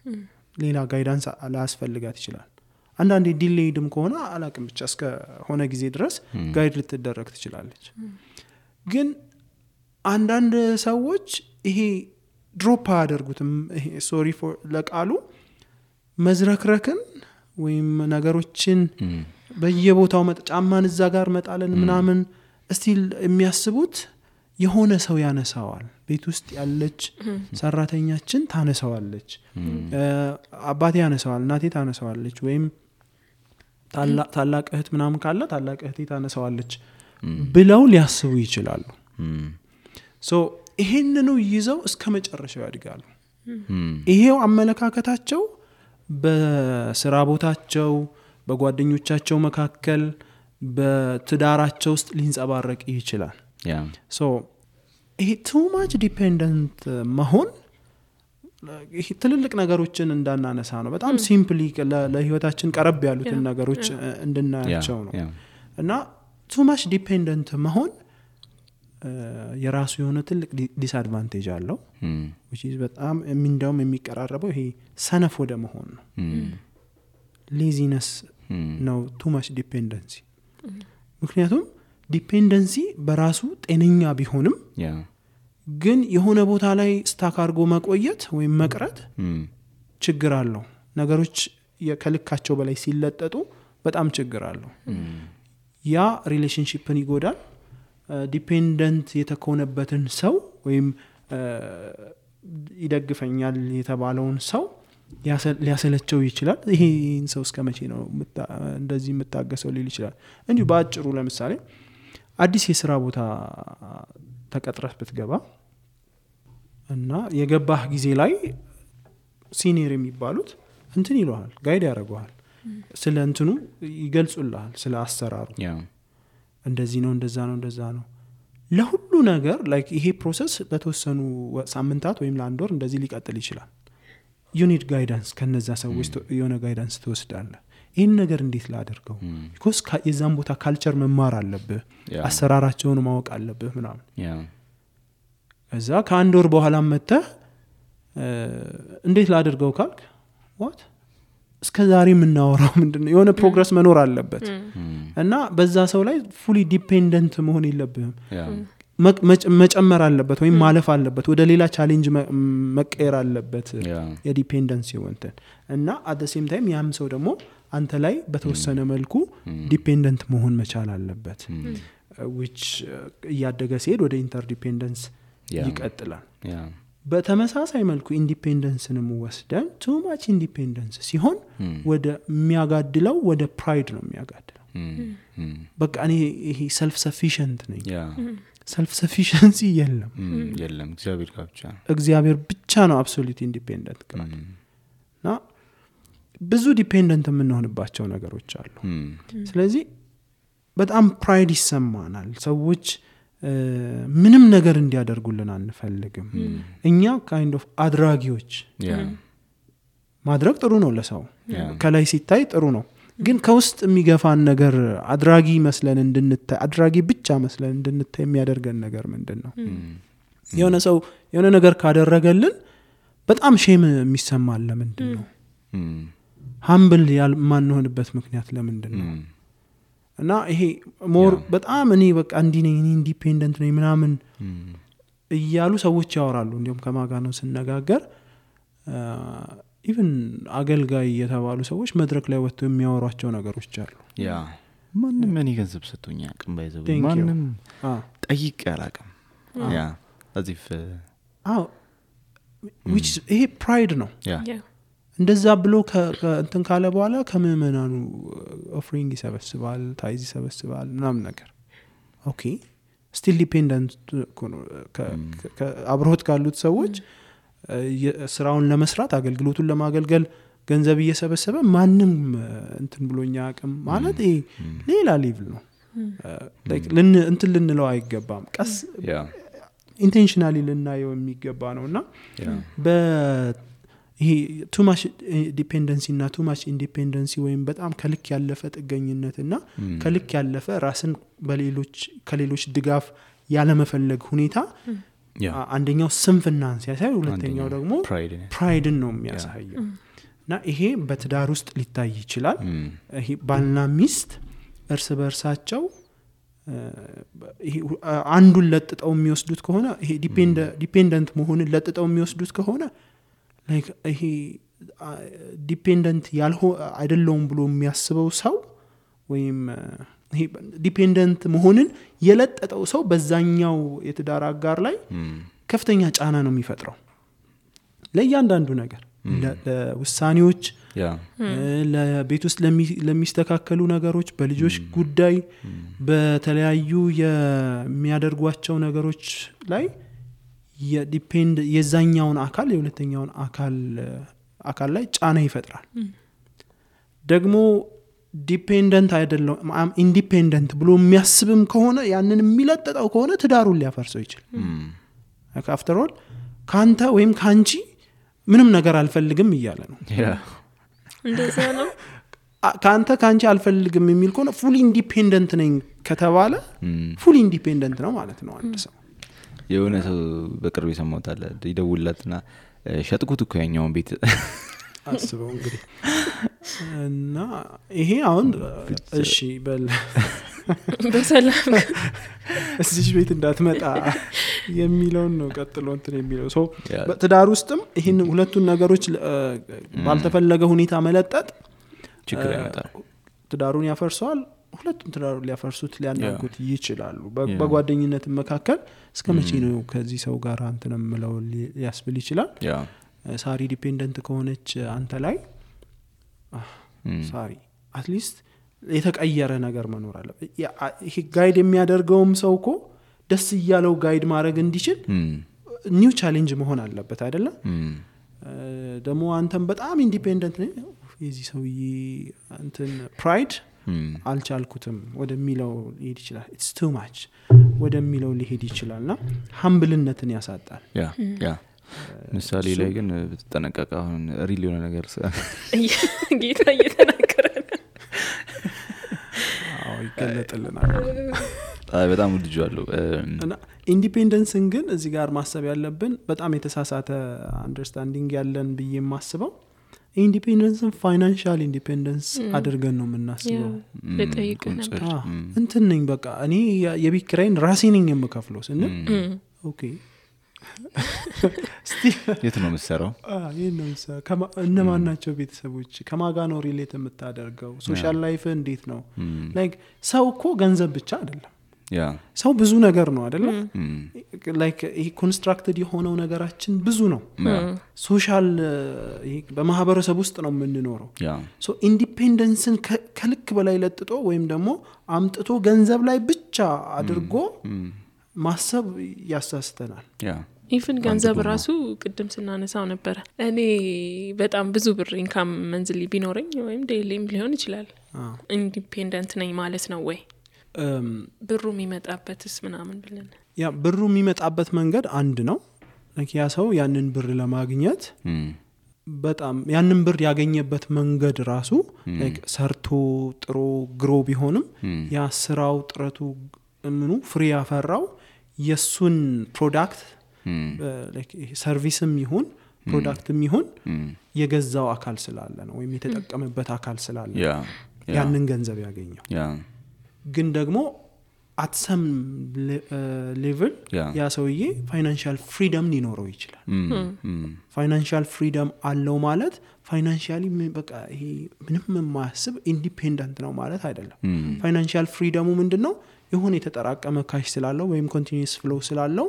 ሌላ ጋይዳንስ ላያስፈልጋት ይችላል አንዳንዴ ዲሌይድም ከሆነ አላቅም ብቻ እስከ ሆነ ጊዜ ድረስ ጋይድ ልትደረግ ትችላለች ግን አንዳንድ ሰዎች ይሄ ድሮፕ አያደርጉትም ይሄ ሶሪ ፎር ለቃሉ መዝረክረክን ወይም ነገሮችን በየቦታው ጫማን እዛ ጋር መጣለን ምናምን እስቲል የሚያስቡት የሆነ ሰው ያነሳዋል ቤት ውስጥ ያለች ሰራተኛችን ታነሳዋለች አባቴ ያነሳዋል እናቴ ታነሳዋለች ወይም ታላቅ እህት ምናምን ካለ ታላቅ እህቴ ታነሳዋለች ብለው ሊያስቡ ይችላሉ ሶ ይሄንኑ ይዘው እስከ መጨረሻው ያድጋሉ ይሄው አመለካከታቸው በስራ ቦታቸው በጓደኞቻቸው መካከል በትዳራቸው ውስጥ ሊንጸባረቅ ይችላል ሶ ይሄ too much dependent መሆን ይሄ ትልልቅ ነገሮችን እንዳናነሳ ነው በጣም ሲምፕሊ ለህይወታችን ቀረብ ያሉትን ነገሮች እንድናያቸው ነው እና too much dependent መሆን የራሱ የሆነ ትልቅ ዲስአድቫንቴጅ አለው which is በጣም እንደውም የሚቀራረበው ይሄ ሰነፍ ወደ መሆን ነው laziness ነው too much dependency ምክንያቱም ዲፔንደንሲ በራሱ ጤነኛ ቢሆንም ግን የሆነ ቦታ ላይ ስታክ አድርጎ መቆየት ወይም መቅረት ችግር አለው ነገሮች ከልካቸው በላይ ሲለጠጡ በጣም ችግር አለው ያ ሪሌሽንሺፕን ይጎዳል ዲፔንደንት የተኮነበትን ሰው ወይም ይደግፈኛል የተባለውን ሰው ሊያሰለቸው ይችላል ይሄን ሰው እስከመቼ ነው እንደዚህ የምታገሰው ሊል ይችላል እንጂ ባጭሩ ለምሳሌ አዲስ የሥራ ቦታ ተቀጥረህ ብትገባ እና የገባህ ጊዜ ላይ ሲኒየር የሚባሉት እንትን ይሏል ጋይድ ያደርጉሃል ስለ እንትኑ ይገልጹልሃል ስለ አሰራሩ እንደዚህ ነው እንደዛ ነው ለሁሉ ነገር ላይክ ይሄ ፕሮሰስ ለተወሰኑ ሳምንታት ወይም ለአንድ ወር እንደዚህ ሊቀጥል ይችላል you need guidance ከነዛ ሰዎች የሆነ ጋይዳንስ ትወስዳለህ ይሄን ነገር እንዴት ላደርገው because የዛን ቦታ ካልቸር መማር አለብህ አሰራራቸውን ማወቅ አለብህ ምናምን እዛ ከአንድ ወር በኋላ መጥተህ እንዴት ላደርገው ካልክ what እስከዛሬ የምናወራው ምንድነው የሆነ ፕሮግረስ መኖር አለበት እና በዛ ሰው ላይ fully dependent መሆን የለብህም መጨመር አለበት ወይም ማለፍ አለበት ወደ ሌላ ቻሌንጅ መቀየር አለበት የዲፔንደንሲ ወንተን እና at the same time ያም ሰው ደግሞ አንተ ላይ በተወሰነ መልኩ ዲፔንደንት መሆን መቻል አለበት which ያደገ ሲሄድ ወደ ኢንተርዲፔንደንስ ይቀጥላል በተመሳሳይ መልኩ ኢንዲፔንደንስንም ወስደን too much independence ሲሆን ወደ የሚያጋድለው ወደ ፕራይድ ነው የሚያጋድለው በቃ እኔ ይሄ ሰልፍ ሰፊሽንት ነኝ ሰልፍ ሰፊሽንሲ የለም እግዚአብሔር ብቻ ነው አብሶሉት ኢንዲፔንደንት እና ብዙ ዲፔንደንት የምንሆንባቸው ነገሮች አሉ ስለዚህ በጣም ፕራይድ ይሰማናል ሰዎች ምንም ነገር እንዲያደርጉልን አንፈልግም እኛ kind of አድራጊዎች ማድረግ ጥሩ ነው ለሰው ከላይ ሲታይ ጥሩ ነው ግን ከውስጥ የሚገፋን ነገር አድራጊ መስለን እንድንታይ አድራጊ ብቻ መስለን እንድንታይ የሚያደርገን ነገር ምንድነው የሆነ ሰው የሆነ ነገር ካደረገልን በጣም ሼም የሚሰማል ለምንድነው humble ያልማንሆንበት ምክንያት ለምንድነው እና ይሄ ሞር በጣም እኔ በቃ እንዲ ነኝ ኢንዲፔንደንት ነኝ ምናምን እያሉ ሰዎች ያወራሉ እንዲሁም ከማጋ ነው ስነጋገር ኢቭን አገልጋይ የተባሉ ሰዎች መድረክ ላይ ወጥተው የሚያወሯቸው ነገሮች አሉ ማንም እኔ ገንዘብ ሰጥቶኛ አቅም ባይዘው ማንም ጠይቅ ያላቀም አዚፍ which ይሄ pride ነው እንደዛ ብሎ እንትን ካለ በኋላ ከመመናኑ ኦፈሪንግ ይሰበስባል ታይዝ ይሰበስባል ምናምን ነገር ኦኬ ስቲል ዲፔንደንት አብሮት ካሉት ሰዎች ስራውን ለመስራት አገልግሎቱን ለማገልገል ገንዘብ እየሰበሰበ ማንም እንትን ብሎኛ አቅም ማለት ይሄ ሌላ ሌቭል ነው like እንትን ልንለው አይገባም ቀስ ኢንቴንሽናሊ ልናየው የሚገባ ነውና ይሄ too much dependency እና too much independency ወይም በጣም ከልክ ያለፈ ጥገኝነትና ከልክ ያለፈ ራስን ከሌሎች ድጋፍ ያለ መፈለግ ሁኔታ አንደኛው ስንፍናን ሲያሳይ ሁለተኛው ደግሞ ፕራይድን ነው የሚያሳየው እና ይሄ በትዳር ውስጥ ሊታይ ይችላል ይሄ ባልና ሚስት እርስ በርሳቸው ይሄ አንዱን ለጥጠው የሚወስዱት ከሆነ ይሄ ዲፔንደንት መሆንን ለጥጠው የሚወስዱት ከሆነ like ይሄ ዲፔንደንት አይደለም ብሎ የሚያስበው ሰው ወይም ይሄ ዲፔንደንት መሆንን የለጠጠው ሰው በዛኛው የትዳር አጋር ላይ ከፍተኛ ጫና ነው የሚፈጥረው ለእያንዳንዱ ነገር ለውሳኔዎች ለቤት ውስጥ ለሚስተካከሉ ነገሮች በልጆች ጉዳይ በተለያዩ የሚያደርጓቸው ነገሮች ላይ የዛኛውን አካል የሁለተኛውን አካል ላይ ጫና ይፈጥራል ደግሞ ዲፔንደንት አይደለም ኢንዲፔንደንት ብሎ የሚያስብም ከሆነ ያንን የሚለጠጠው ከሆነ ትዳሩን ሊያፈርሰው ይችላል after all ካንተ ወይም ካንቺ ምንም ነገር አልፈልግም እያለ ነው እንደዛ ነው ካንቺ አልፈልግም የሚል ከሆነ ፉሊ ኢንዲፔንደንት ነኝ ከተባለ ፉሊ ኢንዲፔንደንት ነው ማለት ነው አንድ ሰው የሆነ ሰው በቅርብ ይሰማውታል ይደውልላትና ሸጥኩት እኮ ያኛውን ቤት አስበው እንግዲህ እና ይሄ አሁን እሺ በሰላም እዚህ ቤት እንዳትመጣ የሚለው ነው ቀጥሎ እንትን የሚለው ሰው በትዳር ውስጥም ይሄን ሁለቱን ነገሮች ባልተፈለገ ሁኔታ መለጠጥ ችግር ያመጣል ትዳሩን ያፈርሰዋል ሁለቱም ትዳሩን ሊያፈርሱት ሊያናጉት ይችላሉ በጓደኝነት መካከል እስከመቼ ነው ከዚህ ሰው ጋር አንተንም ምለው ያስብል ይችላል ሳሪ ዲፔንደንት ከሆነች አንተ ላይ ሳሪ አትሊስት የተቀየረ ነገር መኖር አለ ይሄ ጋይድ የሚያደርገውም ሰውኮ ደስ ይያለው ጋይድ ማድረግ እንዲችል ኒው ቻሌንጅ መሆን አለበት አይደለ ደሞ አንተም በጣም ኢንዲፔንደንት ነህ የዚህ ሰውዬ እንትን ፕራይድ አልቻልኩትም ወደሚለው ሊሄድ ይችላል it's too much ወደሚለው ሊሄድ ይችላልና ሀምብልነትን ያሳጣል ያ ምሳሌ ላይ ግን ተጠነቀቀ አሁን ሪል የሆነ ነገር ጌታ እየተናገረ ይገለጥልናል በጣም ልጅዋለሁ እና ኢንዲፔንደንስን ግን እዚህ ጋር ማሰብ ያለብን በጣም የተሳሳተ አንደርስታንዲንግ ያለን ብዬ የማስበው ኢንዲፔንደንስን ፋይናንሻል ኢንዲፔንደንስ አድርገን ነው የምናስበው ለጠይቅ ነበር እንትን ነኝ በቃ እኔ የቤት ኪራይን ራሴ ነኝ የምከፍለው ስንል ኦኬ የት ነው የምትሰራው ይሄን ነው እነማን ናቸው ቤተሰቦች ከማጋ ነው ሪሌት የምታደርገው ሶሻል ላይፍ እንዴት ነው ላይክ ሰው እኮ ገንዘብ ብቻ አይደለም ሰው ብዙ ነገር ነው አይደለ ላይክ ይሄ ኮንስትራክትድ የሆነው ነገራችን ብዙ ነው ሶሻል በማህበረሰብ ውስጥ ነው የምንኖረው ሶ ኢንዲፔንደንስን ከልክ በላይ ለጥጦ ወይም ደግሞ አምጥቶ ገንዘብ ላይ ብቻ አድርጎ ማሰብ ያሳስተናል ኢቭን ገንዘብ ራሱ ቅድም ስናነሳው ነበር እኔ በጣም ብዙ ብር ኢንካም መንዝሊ ቢኖረኝ ወይም ዴይሊም ሊሆን ይችላል ኢንዲፔንደንት ነኝ ማለት ነው ወይ ብሩ የሚመጣበትስ ምናምን ብለን ያ ብሩ የሚመጣበት መንገድ አንድ ነው ያ ሰው ያንን ብር ለማግኘት በጣም ያንን ብር ያገኘበት መንገድ ራሱ ላይክ ሰርቶ ጥሮ ግሮ ቢሆንም ያ ስራው ጥረቱ ምኑ ፍሬ ያፈራው የሱን ፕሮዳክት ላይክ ሰርቪስም ይሁን ፕሮዳክትም ይሁን የገዛው አካል ስላለ ነው ወይም የተጠቀመበት አካል ስላለ ያንን ገንዘብ ያገኘው ግን ደግሞ at some level ያ ሰውዬ ፋይናንሻል ፍሪደም ሊኖረው ይችላል ፋይናንሻል ፍሪደም አለው ማለት ፋይናንሻሊ በቃ ይሄ ምንም የማያስብ ኢንዲፔንደንት ነው ማለት አይደለም ፋይናንሻል ፍሪደሙ ምንድነው የሆነ የተጠራቀመ ካሽ ስላለው ወይም ኮንቲኒዩስ ፍሎው ስላለው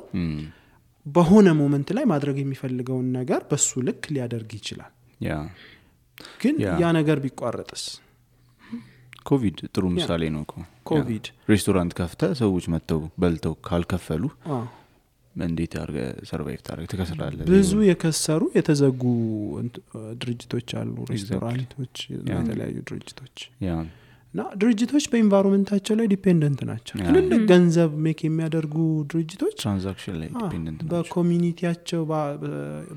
በሆነ ሞመንት ላይ ማድረግ የሚፈልገውን ነገር በሱ ልክ ሊያደርግ ይችላል ግን ያ ነገር ቢቋረጥስ ኮቪድ ጥሩ ምሳሌ ነው ኮቪድ ሬስቶራንት ከፍተ ሰዎች መተው በልተው ካልከፈሉ እንዴት አርገ ሰርቫይቭ ታረግ ተከስራለ ብዙ የከሰሩ የተዘጉ ድርጅቶች አሉ ሬስቶራንቶች የተለያዩ ድርጅቶች እና ድርጅቶች በኢንቫይሮንመንታቸው ላይ ዲፔንደንት ናቸው ትልልቅ ገንዘብ ሜክ የሚያደርጉ ድርጅቶች ትራንዛክሽን ላይ ዲፔንደንት ናቸው በኮሚኒቲያቸው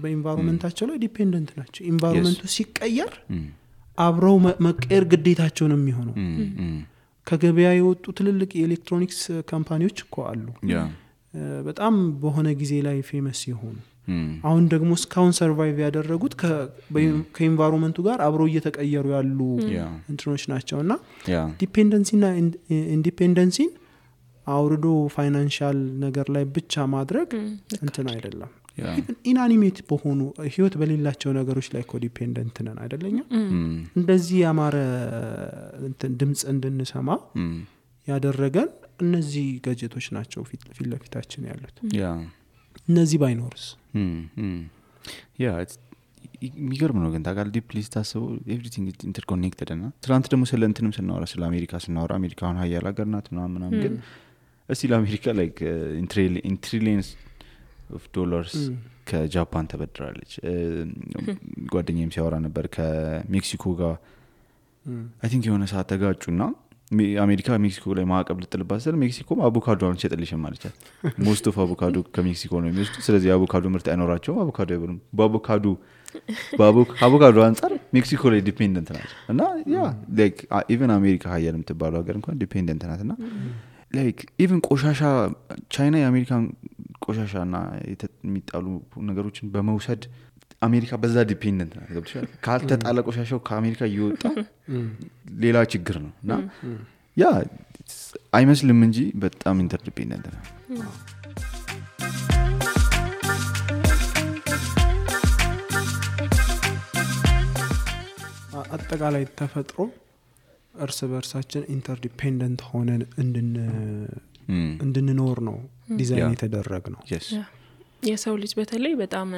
በኢንቫይሮንመንታቸው ላይ ዲፔንደንት ናቸው ኢንቫይሮንመንቱ ሲቀየር አብረው መቀየር ግዴታቸው ነው የሚሆነው ከገበያ የወጡ ትልልቅ የኤሌክትሮኒክስ ካምፓኒዎች እኮ አሉ በጣም በሆነ ጊዜ ላይ ፌመስ ይሆኑ አሁን ደግሞ ስካውን ሰርቫይቭ ያደረጉት ከኢንቫይሮንመንቱ ጋር አብረው እየተቀየሩ ያሉ እንትኖች ናቸውና ዲፔንደንሲና ኢንዲፔንደንሲን አውርዶ ፋይናንሻል ነገር ላይ ብቻ ማድረግ እንትን አይደለም ኢንአኒሜት በሆኑ ህይወት በሌላቸው ነገሮች ላይ ኮዲፔንደንት ነን አይደለኛ እንደዚህ ያማረ እንትን ድምጽ እንድንሰማ ያደረገን እነዚህ ጋጀቶች ናቸው ፊት ለፊታችን ያሉት እነዚህ ባይኖርስ የሚገርም ነው ግን ታውቃለህ ዲፕሊ ስታስበው ኤቭሪቲንግ ኢንተርኮኔክትድ እና ትናንት ደግሞ ስለ እንትንም ስናወራ ስለ አሜሪካ ስናወራ አሜሪካ አሁን ሀያል ሀገር ናት ምናምን ግን እስቲ ለአሜሪካ ላይክ ኢንትሪሊየንስ ኦፍ ዶላርስ ከጃፓን ተበድራለች ጓደኛዬም ሲያወራ ነበር ከሜክሲኮ ጋር አይ ቲንክ የሆነ ሰዓት ተጋጩና አሜሪካ ሜክሲኮ ላይ ማዕቀብ ልጥልባት ስለ ሜክሲኮ አቮካዶ አንሸጥልሽም ማለቻት ሞስት ኦፍ አቮካዶ ከሜክሲኮ ነው የሚወስዱ ስለዚህ አቮካዶ ምርት አይኖራቸውም አቮካዶ አይበሉም በአቮካዶ አንጻር ሜክሲኮ ላይ ዲፔንደንት ናቸው እና ያ ላይክ ኢቨን አሜሪካ ሀያል የምትባለው ሀገር እንኳን ዲፔንደንት ናት እና ላይክ ኢቨን ቆሻሻ ቻይና የአሜሪካን ቆሻሻና የሚጣሉ ነገሮችን በመውሰድ አሜሪካ በዛ ዲፔንደንት ናት ገብቶሻል ካልተጣለ ቆሻሻው ከአሜሪካ እየወጣ ሌላ ችግር ነው እና ያ አይመስልም እንጂ በጣም ኢንተርዲፔንደንት ነው አጠቃላይ ተፈጥሮ እርስ በርሳችን ኢንተርዲፔንደንት ሆነን እንድንኖር ነው ዲዛይን የተደረገ ነው የሰው ልጅ በተለይ በጣም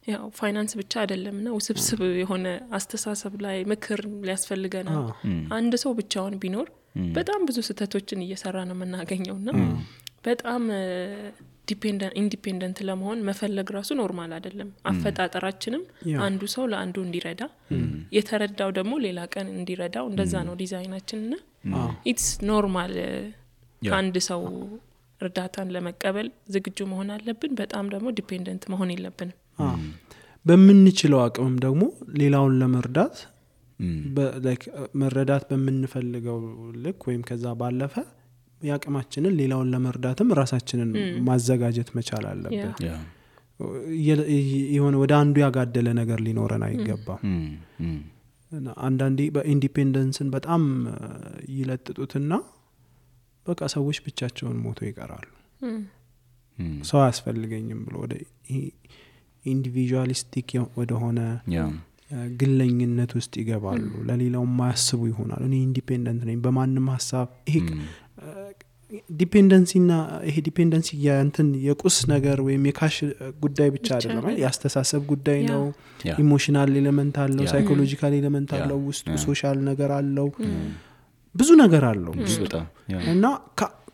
ያው ፋይናንስ ብቻ አይደለምና ውስብስብ የሆነ አስተሳሰብ ላይ ምክር ሊያስፈልገናል አንድ ሰው ብቻውን ቢኖር በጣም ብዙ ስህተቶችን እየሰራ ነው የምናገኘውና በጣም ኢንዲፔንደንት ለመሆን መፈለግ ራሱ ኖርማል አይደለም አፈጣጠራችንም አንዱ ሰው ለአንዱ እንዲረዳ የተረዳው ደግሞ ሌላ ቀን እንዲረዳው እንደዛ ነው ዲዛይናችንና ኢትስ ኖርማል ከአንድ ሰው እርዳታን ለመቀበል ዝግጁ መሆን አለብን በጣም ደግሞ ዲፔንደንት መሆን የለብንም በምንችለው አቅምም ደግሞ ሌላውን ለመርዳት ላይክ መረዳት በምንፈልገው ልክ ወይም ከዛ ባለፈ ያቅማችንን ሌላውን ለመርዳትም ራሳችንን ማዘጋጀት መቻል አለብን የሆነ ወደ አንዱ ያጋደለ ነገር ሊኖረን አይገባም አንዳንዴ በኢንዲፔንደንስን በጣም ይለጥጡትና በቃ ሰዎች ብቻቸውን ሞቶ ይቀራሉ ሰው አያስፈልገኝም ብሎ ወደ ኢንዲቪጁዋሊስቲክ ወደ ሆነ ግለኝነት ውስጥ ይገባሉ ለሌላው ማያስቡ ይሆናል እኔ ኢንዲፔንደንት ነኝ በማንም ሐሳብ ይሄ ዲፔንደንሲና ይሄ ዲፔንደንሲ የእንትን የቁስ ነገር ወይም የካሽ ጉዳይ ብቻ አይደለም ያስተሳሰብ ጉዳይ ነው ኢሞሽናል ኤሌመንት አለው ሳይኮሎጂካል ኤሌመንት አለው ውስጡ ሶሻል ነገር አለው ብዙ ነገር አለው እና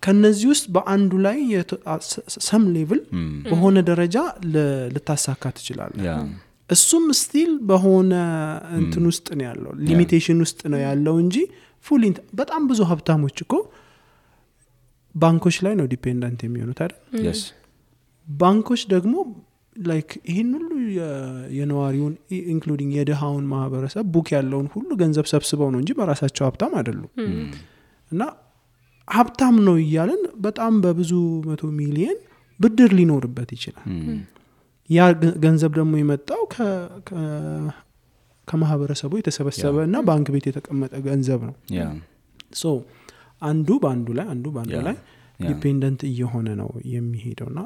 ከነዚህ ውስጥ በአንዱ ላይ ሰም ሌቭል በሆነ ደረጃ ልታሳካ ትችላለህ እሱም ስቲል በሆነ እንትን ውስጥ ነው ያለው ሊሚቴሽን ውስጥ ነው ያለው እንጂ ፉል በጣም ብዙ ሀብታሞች እኮ ባንኮች ላይ ነው ዲፔንደንት የሚሆኑት አይደል yes ባንኮች ደግሞ ላይክ ይሄን ሁሉ የነዋሪውን ኢንክሉዲንግ የደሃውን ማህበረሰብ ቡክ ያለውን ሁሉ ገንዘብ ሰብስበው ነው እንጂ በራሳቸው ሀብታም አይደሉም እና ሀብታም ነው እያልን በጣም በብዙ 100 ሚሊዮን ብድር ሊኖርበት ይችላል ያ ገንዘብ ደግሞ የመጣው ከማህበረሰቡ የተሰበሰበና ባንክ ቤት የተቀመጠ ገንዘብ ነው ሶ አንዱ ባንዱ ላይ ዲፔንደንት እየሆነ ነው የሚሄደውና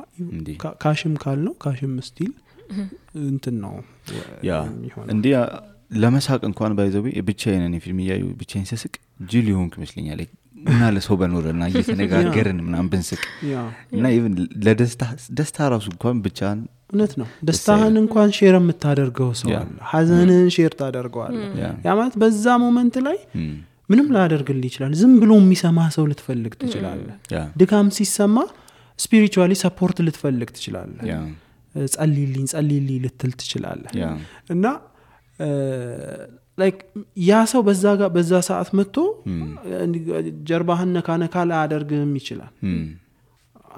ካሽም ካልነው ካሽም ስቲል እንትን ነው እንዴ ለመሳቅ እንኳን ባይዘው ብቻዬን እኔ ፊልም ያዩ ብቻዬን ስስቅ ጅል ይሆንክ መስለኛል እና ለሰው በኖርና እየተነጋገርን ምናምን ብንስቅ እና ኢቭን ለደስታ ራሱ እንኳን ብቻን እውነት ነው ደስታህን እንኳን ሼር የምታደርገው ሰው አለ ሐዘንን ሼር ታደርገዋለህ ያ ማለት በዛ ሞመንት ላይ ምንም ላያደርግልህ ይችላል ዝም ብሎ የሚሰማ ሰው ልትፈልግ ትችላለህ ድካም ሲሰማ ስፒሪቹዋሊ ሰፖርት ልትፈልግ ትችላለህ ጸልይልኝ ልትል ትችላለህ እና ላይክ ያ ሰው በዛ ሰዓት መጥቶ ጀርባህን ነካ ላያደርግም ይችላል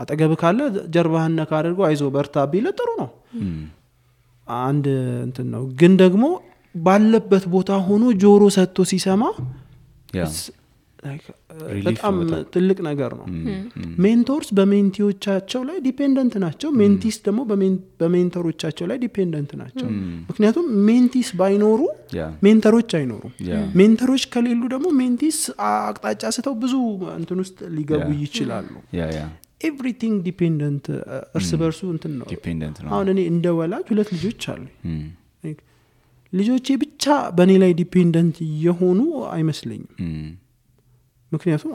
አጠገብ ካለ ጀርባህን ነካ አድርጎ አይዞ በርታ ቢል ጥሩ ነው አንድ እንትን ነው ግን ደግሞ ባለበት ቦታ ሆኖ ጆሮ ሰጥቶ ሲሰማ በጣም ትልቅ ነገር ነው ሜንቶርስ በሜንቲዎቻቸው ላይ ዲፔንደንት ናቸው ሜንቲስ ደግሞ በሜንተሮቻቸው ላይ ዲፔንደንት ናቸው ምክንያቱም ሜንቲስ ባይኖሩ ሜንተሮች አይኖሩም ሜንተሮች ከሌሉ ደግሞ ሜንቲስ አቅጣጫ ስተው ብዙ እንትን ውስጥ ሊገቡ ይችላሉ ኤቭሪቲንግ ዲፔንደንት እርስ በርሱ እንትን ነው አሁን እኔ እንደ ወላጅ 2 ልጆች አሉ ልጆቼ ብቻ በእኔ ላይ ዲፔንደንት የሆኑ አይመስለኝም ምክንያቱም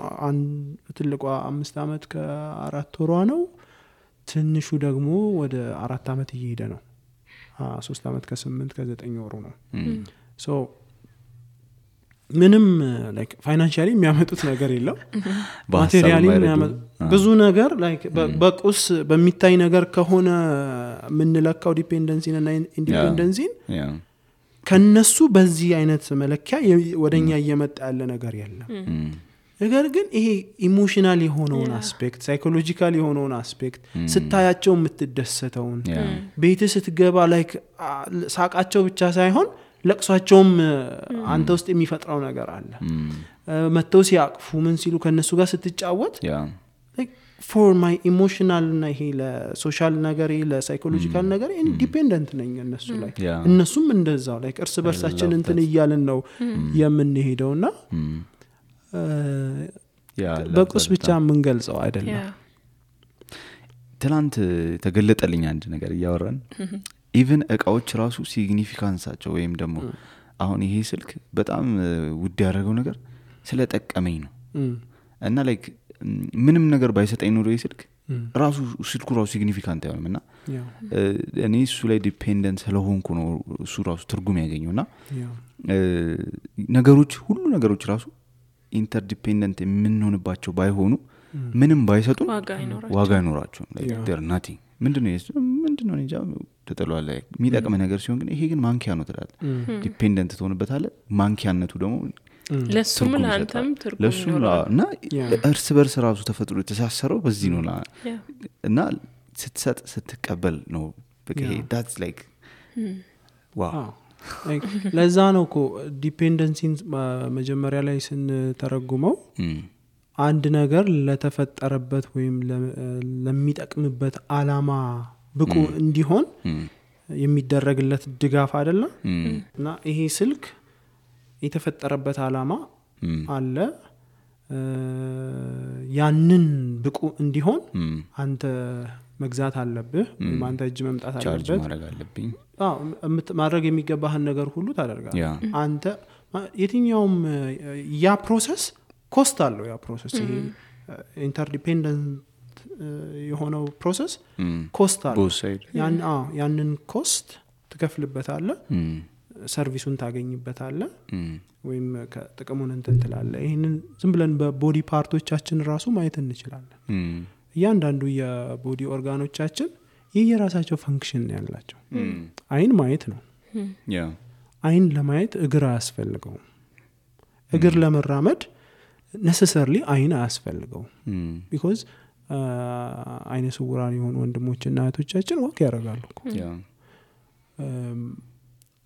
ትልቋ 5 አመት ከ4 ወሯ ነው ትንሹ ደግሞ ወደ 4 አመት እየሄደ ነው 3 አመት ከ8 ከ9 ወሩ ነው ሶ ምንም ላይክ ፋይናንሻሊ የሚያመጡት ነገር የለም ማቴሪያሊ ብዙ ነገር ላይክ በቁስ በሚታይ ነገር ከሆነ ምንለካው ዲፔንደንሲን እና ኢንዲፔንደንሲን ከነሱ በዚህ አይነት መለኪያ ወደኛ እየመጣ ያለ ነገር የለም ነገር ግን ይሄ ኢሞሽናል የሆነውን አስፔክት ሳይኮሎጂካል የሆነውን አስፔክት ስታያቸው የምትደሰተውን ቤት ስትገባ ላይክ ሳቃቸው ብቻ ሳይሆን ለቅሷቸውም አንተ ውስጥ የሚፈጥረው ነገር አለ መተው ሲያቅፉ ምን ሲሉ ከነሱ ጋር ስትጫወት for my emotional እና ይሄ ለሶሻል ነገር ለሳይኮሎጂካል ነገር ኢንዲፔንደንት ነኝ እነሱ ላይ እነሱም እንደዛው ላይክ እርስ በርሳችን እንትን እያልን ነው የምንሄደውና በቁስ ብቻ የምንገልጸው አይደለም ትላንት ተገለጠልኝ አንድ ነገር እያወራን ኢቭን እቃዎች ራሱ ሲግኒፊካንሳቸው ወይም ደግሞ አሁን ይሄ ስልክ በጣም ውድ ያደረገው ነገር ስለጠቀመኝ ነው እና ላይክ ምንም ነገር ባይሰጠኝ ኖሮ ይስልክ ራሱ ስልኩ ራሱ ሲግኒፊካንት አይሆንምና እኔ እሱ ላይ ዲፔንደንት ስለሆንኩ ነው እሱ ራሱ ትርጉም ያገኘውና ነገሮች ሁሉ ነገሮች ራሱ ኢንተርዲፔንደንት የምንሆንባቸው ባይሆኑ ምንም ባይሰጡ ዋጋ አይኖራቸውም like they're nothing ምንድነው እንጃ ተጠሏል የሚጠቅም ነገር ሲሆን ግን ይሄ ግን ማንኪያ ነው ትላል ዲፔንደንት ትሆንበታለህ ማንኪያነቱ ደግሞ ለሱም ለአንተም ትርጉም ይኖራል እና እርስ በርስ ራሱ ተፈጥሮ የተሳሰረው በዚህ ነው እና ስትሰጥ ስትቀበል ነው በቃ that's like wow ለዛ ነው እኮ ዲፔንደንሲን መጀመሪያ ላይ ስንተረጉመው አንድ ነገር ለተፈጠረበት ወይም ለሚጠቅምበት አላማ ብቁ እንዲሆን የሚደረግለት ድጋፍ አይደለም እና ይሄ ስልክ የተፈጠረበት አላማ አለ ያንን ብቁ እንዲሆን አንተ መግዛት አለብህ አንተ እጅ መምጣት አለበት ማድረግ የሚገባህን ነገር ሁሉ ታደርጋለህ አንተ የትኛውም ያ ፕሮሰስ ኮስት አለው ያ ፕሮሰስ ይሄ ኢንተርዲፔንደንት የሆነው ፕሮሰስ ኮስት አለ ያንን ኮስት ትከፍልበታለህ ሰርቪሱን ታገኝበታለህ ወይም ከጥቅሙን እንትን ትላለህ ይሄንን ዝም ብለን በቦዲ ፓርቶቻችን ራሱ ማየት እንችላለን እያንዳንዱ የቦዲ ኦርጋኖቻችን የየራሳቸው ፈንክሽን ያላቸው አይን ማየት ነው አይን ለማየት እግር አያስፈልገው እግር ለመራመድ necessarily አይን አያስፈልገው because አይነ ስውራን የሆኑ ወንድሞችና እህቶቻችን ወክ ያደርጋሉ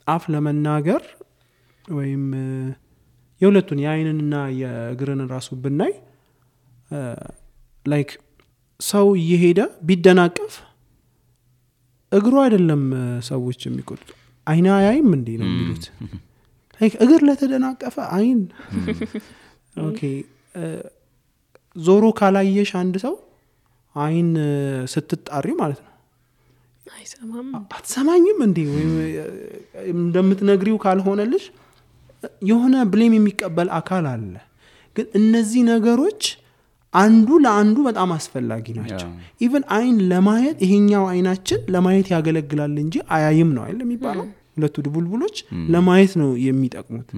አፍ ለመናገር ወይም የሁለቱን የአይንንና የእግርን ራሱ ብናይ ላይክ ሰው እየሄደ ቢደናቀፍ እግሩ አይደለም ሰዎች የሚቆጡት አይና ያይም እንዴ ነው የሚሉት ላይክ እግር ለተደናቀፈ አይን ኦኬ ዞሮ ካላየሽ አንድ ሰው አይን ስትጣሪ ማለት ነው አይሰማም አትሰማኝም እንዴ ወይ እንደምትነግሪው ካልሆነልሽ የሆነ ብሌም የሚቀበል አካል አለ ግን እነዚህ ነገሮች አንዱ ለአንዱ በጣም አስፈላጊ ናቸው ኢቭን አይን ለማየት ይሄኛው አይናችን ለማየት ያገለግላል እንጂ አያይም ነው አይደል የሚባለው ሁለቱ ድቡልቡሎች ለማየት ነው የሚጠቅሙት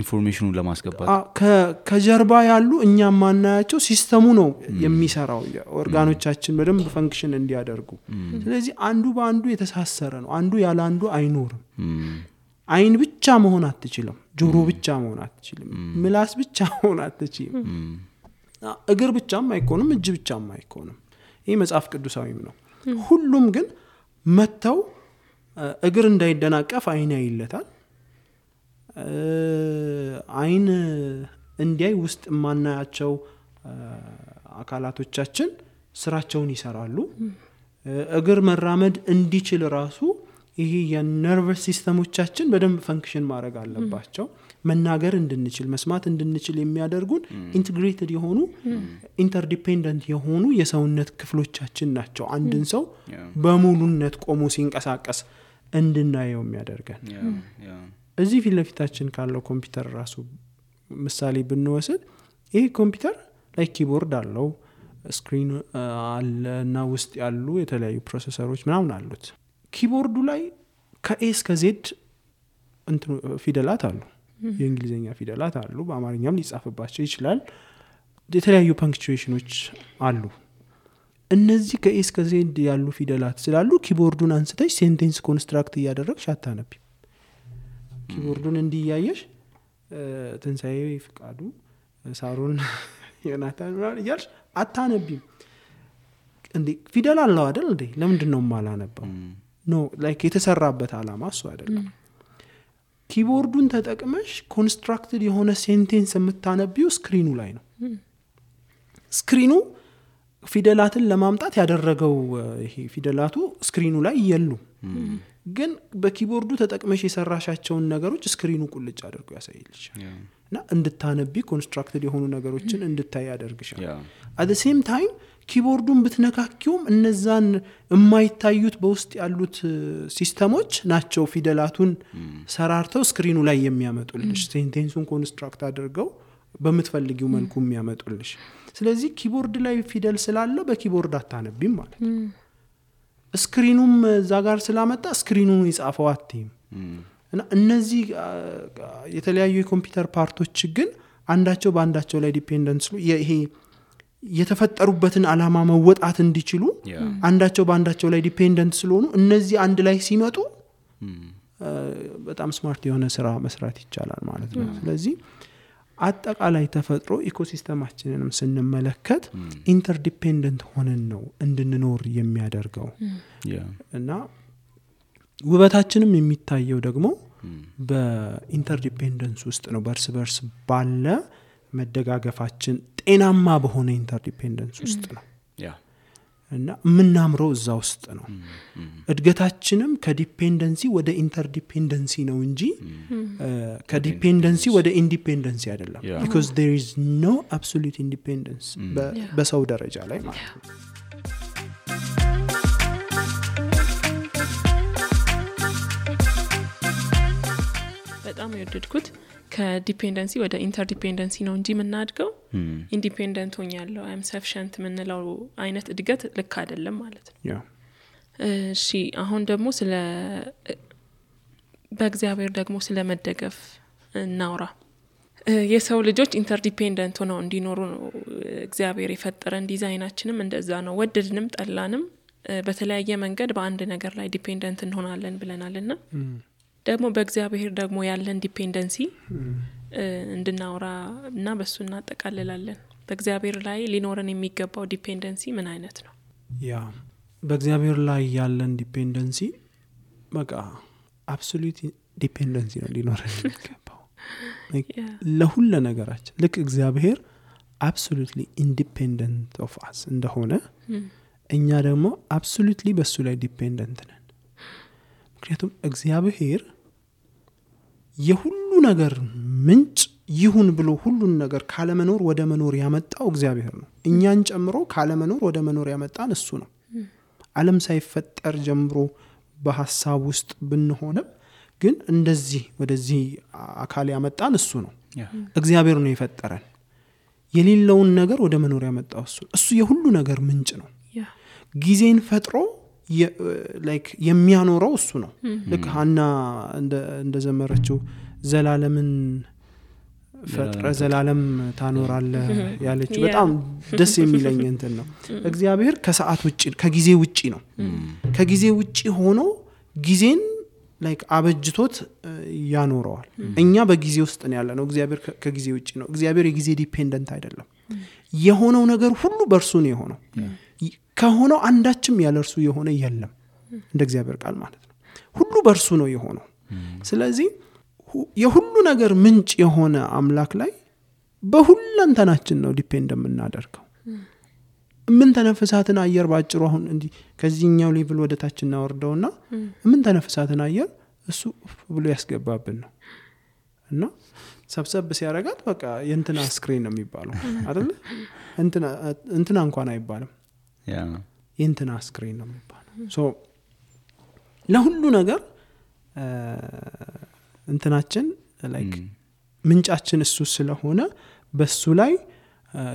ኢንፎርሜሽኑን ለማስገባት ከጀርባ ያሉ እኛም ማናያቸው ሲስተሙ ነው የሚሰራው ኦርጋኖቻችን በደንብ ፈንክሽን እንዲያደርጉ ስለዚህ አንዱ በአንዱ የተሳሰረ ነው አንዱ ያለ አንዱ አይኖርም አይን ብቻ መሆን አትችልም ጆሮ ብቻ መሆን አትችልም ምላስ ብቻ መሆን አትችልም እግር ብቻም አይኮንም እጅ ብቻም አይኮንም ይሄ መጽሐፍ ቅዱሳዊም ነው ሁሉም ግን መተው እግር እንዳይደናቀፍ አይን ያይለታል አይን እንዲያይ ውስጥ ማናያቸው አካላቶቻችን ስራቸውን ይሰራሉ እግር መራመድ እንዲችል ራሱ ይሄ የነርቨስ ሲስተሞቻችን በደንብ ፈንክሽን ማድረግ አለባቸው መናገር እንድንችል መስማት እንድንችል የሚያደርጉን ኢንተግሬትድ የሆኑ ኢንተርዲፔንደንት የሆኑ የሰውነት ክፍሎቻችን ናቸው አንድን ሰው በሙሉነት ቆሞ ሲንቀሳቀስ እንድናየው የሚያደርገን እዚህ ፊት ለፊታችን ካለው ኮምፒውተር ራሱ ምሳሌ ብንወስድ ይሄ ኮምፒውተር ላይ ኪቦርድ አለው ስክሪን አለና ውስጥ ያሉ የተለያዩ ፕሮሰሰሮች ምናምን አሉት ኪቦርዱ ላይ ከኤ እስከ ዜድ እንት ፊደላት አሉ የእንግሊዘኛ ፊደላት አሉ በአማርኛም ሊጻፍባቸው ይችላል የተለያዩ ፓንክቹዌሽኖች አሉ እነዚህ ከኤ እስከ ዜድ ያሉ ፊደላት ስላሉ ኪቦርዱን አንስተሽ ሴንቴንስ ኮንስትራክት እያደረግሽ አታነቢ ኪቦርዱን እንዲያየሽ ትንሳኤ ፍቃዱ ሳሮን ዮናታን ይያልሽ አታነቢም እንዴ ፊደል አለው አይደል እንዴ ለምንድን ነው ማላነበው ኖ ላይክ የተሰራበት አላማ እሱ አይደለም ኪቦርዱን ተጠቅመሽ ኮንስትራክትድ የሆነ ሴንቴንስ የምታነቢው ስክሪኑ ላይ ነው ስክሪኑ ፊደላትን ለማምጣት ያደረገው ይሄ ፊደላቱ ስክሪኑ ላይ ይየሉ ግን በኪቦርዱ ተጠቅመሽ የሰራሻቸውን ነገሮች ስክሪኑ ቁልጭ አድርጎ ያሳይልሽ እና እንድታነቢ ኮንስትራክትድ የሆኑ ነገሮችን እንድታይ ያደርግሻል at the same time ኪቦርዱን ብትነካኪውም እነዛን የማይታዩት በውስጥ ያሉት ሲስተሞች ናቸው ፊደላቱን ሰራርተው ስክሪኑ ላይ የሚያመጡልሽ ሴንቴንሱን ኮንስትራክት አድርገው በመትፈልጊው መልኩ የሚያመጡልሽ ስለዚህ ኪቦርድ ላይ ፊደል ስላለ በኪቦርድ አታነቢም ማለት ስክሪኑም እዛ ጋር ስላመጣ ስክሪኑን ይጻፈው አትይም እና እነዚህ የተለያዩ የኮምፒውተር ፓርቶች ግን አንዳቸው በአንዳቸው ላይ ዲፔንደንስ ይሄ የተፈጠሩበትን አላማ መወጣት እንዲችሉ አንዳቸው በአንዳቸው ላይ ዲፔንደንት ስለሆኑ እነዚህ አንድ ላይ ሲመጡ በጣም ስማርት የሆነ ስራ መስራት ይቻላል ማለት ነው ስለዚህ አጠቃላይ ተፈጥሮ ኢኮሲስተማችንንም ስንመለከት ኢንተርዲፔንደንት ሆነን ነው እንድንኖር የሚያደርገው እና ውበታችንም የሚታየው ደግሞ በኢንተርዲፔንደንስ ውስጥ ነው በርስ በርስ ባለ መደጋገፋችን ጤናማ በሆነ ኢንተርዲፔንደንስ ውስጥ ነው እና ምናምረው እዛ ውስጥ ነው እድገታችንም ከዲፔንደንሲ ወደ ኢንተርዲፔንደንሲ ነው እንጂ ከዲፔንደንሲ ወደ ኢንዲፔንደንሲ አይደለም because there is no absolute independence በሰው ደረጃ ላይ ማለት ነው በጣም የወደድኩት ከዲፔንደንሲ ወደ ኢንተርዲፔንደንሲ ነው እንጂ የምናድገው ኢንዲፔንደንት ሆኛለሁ አይ አም ሰፊሽንት ምንለው አይነት እድገት ልክ አይደለም ማለት ነው። እሺ አሁን ደግሞ ስለ በእግዚአብሔር ደግሞ ስለ መደገፍ እናውራ። የሰው ልጆች ኢንተርዲፔንደንት ሆነው እንዲኖሩ ነው እግዚአብሔር የፈጠረን። ዲዛይናችንም እንደዛ ነው። ወደድንም ጠላንም በተለያየ መንገድ በአንድ ነገር ላይ ዲፔንደንት እንሆናለን ብለናልና ደግሞ በእግዚአብሔር ደግሞ ያለን ዲፔንደንሲ እንድናወራ እና በሱ እናጠቃልላለን። በእግዚአብሔር ላይ ሊኖረን የሚገባው ዲፔንደንሲ ምን አይነት ነው? ያ በእግዚአብሔር ላይ ያለን ዲፔንደንሲ በቃ አብሶሉት ዲፔንደንሲ ነው ሊኖረን የሚገባው ለሁሉ ነገራችን። ልክ እግዚአብሔር አብሶሉትሊ ኢንዲፔንደንት ኦፍ አስ እንደሆነ እኛ ደግሞ አብሶሉትሊ በሱ ላይ ዲፔንደንት ነን። ምክንያቱም እግዚአብሔር የሁሉ ነገር ምንጭ ይሁን ብሎ ሁሉን ነገር ካለመኖር ወደ መኖር ያመጣው እግዚአብሔር ነው። እኛን ጨምሮ ካለመኖር ወደ መኖር ያመጣን እሱ ነው። ዓለም ሳይፈጠር ጀምሮ በሐሳብ ውስጥ ብንሆንም ግን እንደዚህ ወደዚህ አካል ያመጣን እሱ ነው። እግዚአብሔር ነው የፈጠረን። የሌለውን ነገር ወደ መኖር ያመጣው እሱ የሁሉ ነገር ምንጭ ነው። ጊዜን ፈጥሮ የሚያኖረው እሱ ነው። ልክ ሐና እንደዘመረችው ዘላለምን ፈጥረ ዘላለም ታኖራለህ ያለችው በጣም ደስ የሚለኝ እንትን ነው። እግዚአብሔር ከሰዓት ውጪ ከጊዜ ውጪ ነው። ከጊዜ ውጪ ሆኖ ጊዜን አበጅቶት ያኖረዋል። እኛ በጊዜ ውስጥ ነው ያለነው። እግዚአብሔር ከጊዜ ውጪ ነው። እግዚአብሔር የጊዜ ዲፔንደንት አይደለም። የሆነው ነገር ሁሉ በእርሱ ነው የሆነው። ከሆነው አንዳችም ያለ እርሱ የሆነ የለም እንደ እግዚአብሔር ቃል ማለት ነው። ሁሉ በእርሱ ነው የሆነው። ስለዚህ የሁሉ ነገር ምንጭ የሆነ አምላክ ላይ በሁለንተናችን ነው ዲፔንድ የምናደርገው። ምን ተነፍሳትን አየር ባጭሩ አሁን እንዲህ ከዚህኛው ሌቭል ወደ ታች እናወርደውና ምን ተነፍሳትን አየር እሱ ብሎ ያስገባብን ነው እና ሰብሰብ ሲያረጋት በቃ የእንትና ስክሪን ነው የሚባለው አይደል? እንትና እንኳን አይባልም የእንትና ስክሪን ነው የሚባለው። ለሁሉ ነገር እንትናችን ምንጫችን እሱ ስለሆነ በሱ ላይ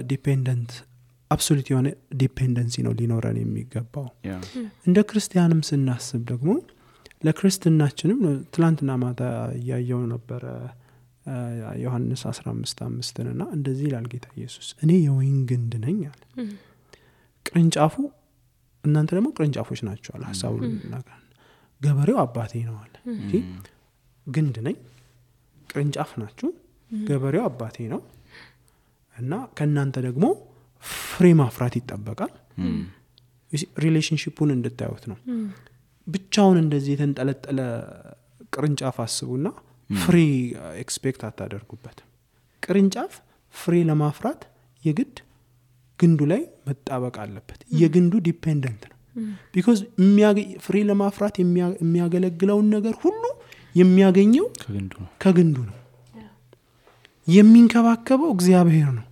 ዲፔንደንት አብሶሉት የሆነ ዲፔንደንሲ ነው ሊኖረን የሚገባው። እንደ ክርስቲያንም ስናስብ ደግሞ ለክርስትናችንም ትላንትና ማታ ያየው ነበር ዮሐንስ 15:5 እና እንደዚህ ይላል ጌታ ኢየሱስ እኔ የወይን ግንድ ነኝ አለ። ቅርንጫፉ እናንተ ደግሞ ቅርንጫፎች ናችሁ አለ። ሐሳቡ ነገር ገበሬው አባቴ ነው አለ። ግንድ ነኝ ቅርንጫፍ ናችሁ፣ ገበሬው አባቴ ነው እና ከናንተ ደግሞ ፍሬ ማፍራት ይጠበቃል። ሪሌሽንሺፑን እንድታዩት ነው። ብቻውን እንደዚህ የተንጠለጠለ ቅርንጫፍ አስቡና ፍሬ ኤክስፔክት አታደርጉበት። ቅርንጫፍ ፍሬ ለማፍራት የግድ ግንዱ ላይ መጣበቅ አለበት። የግንዱ ዲፔንደንት ነው። ቢኮዝ ፍሬ ለማፍራት የሚያገለግለውን ነገር ሁሉ የሚያገኘው ከግንዱ ነው። የሚንከባከበው እግዚአብሔር ነው።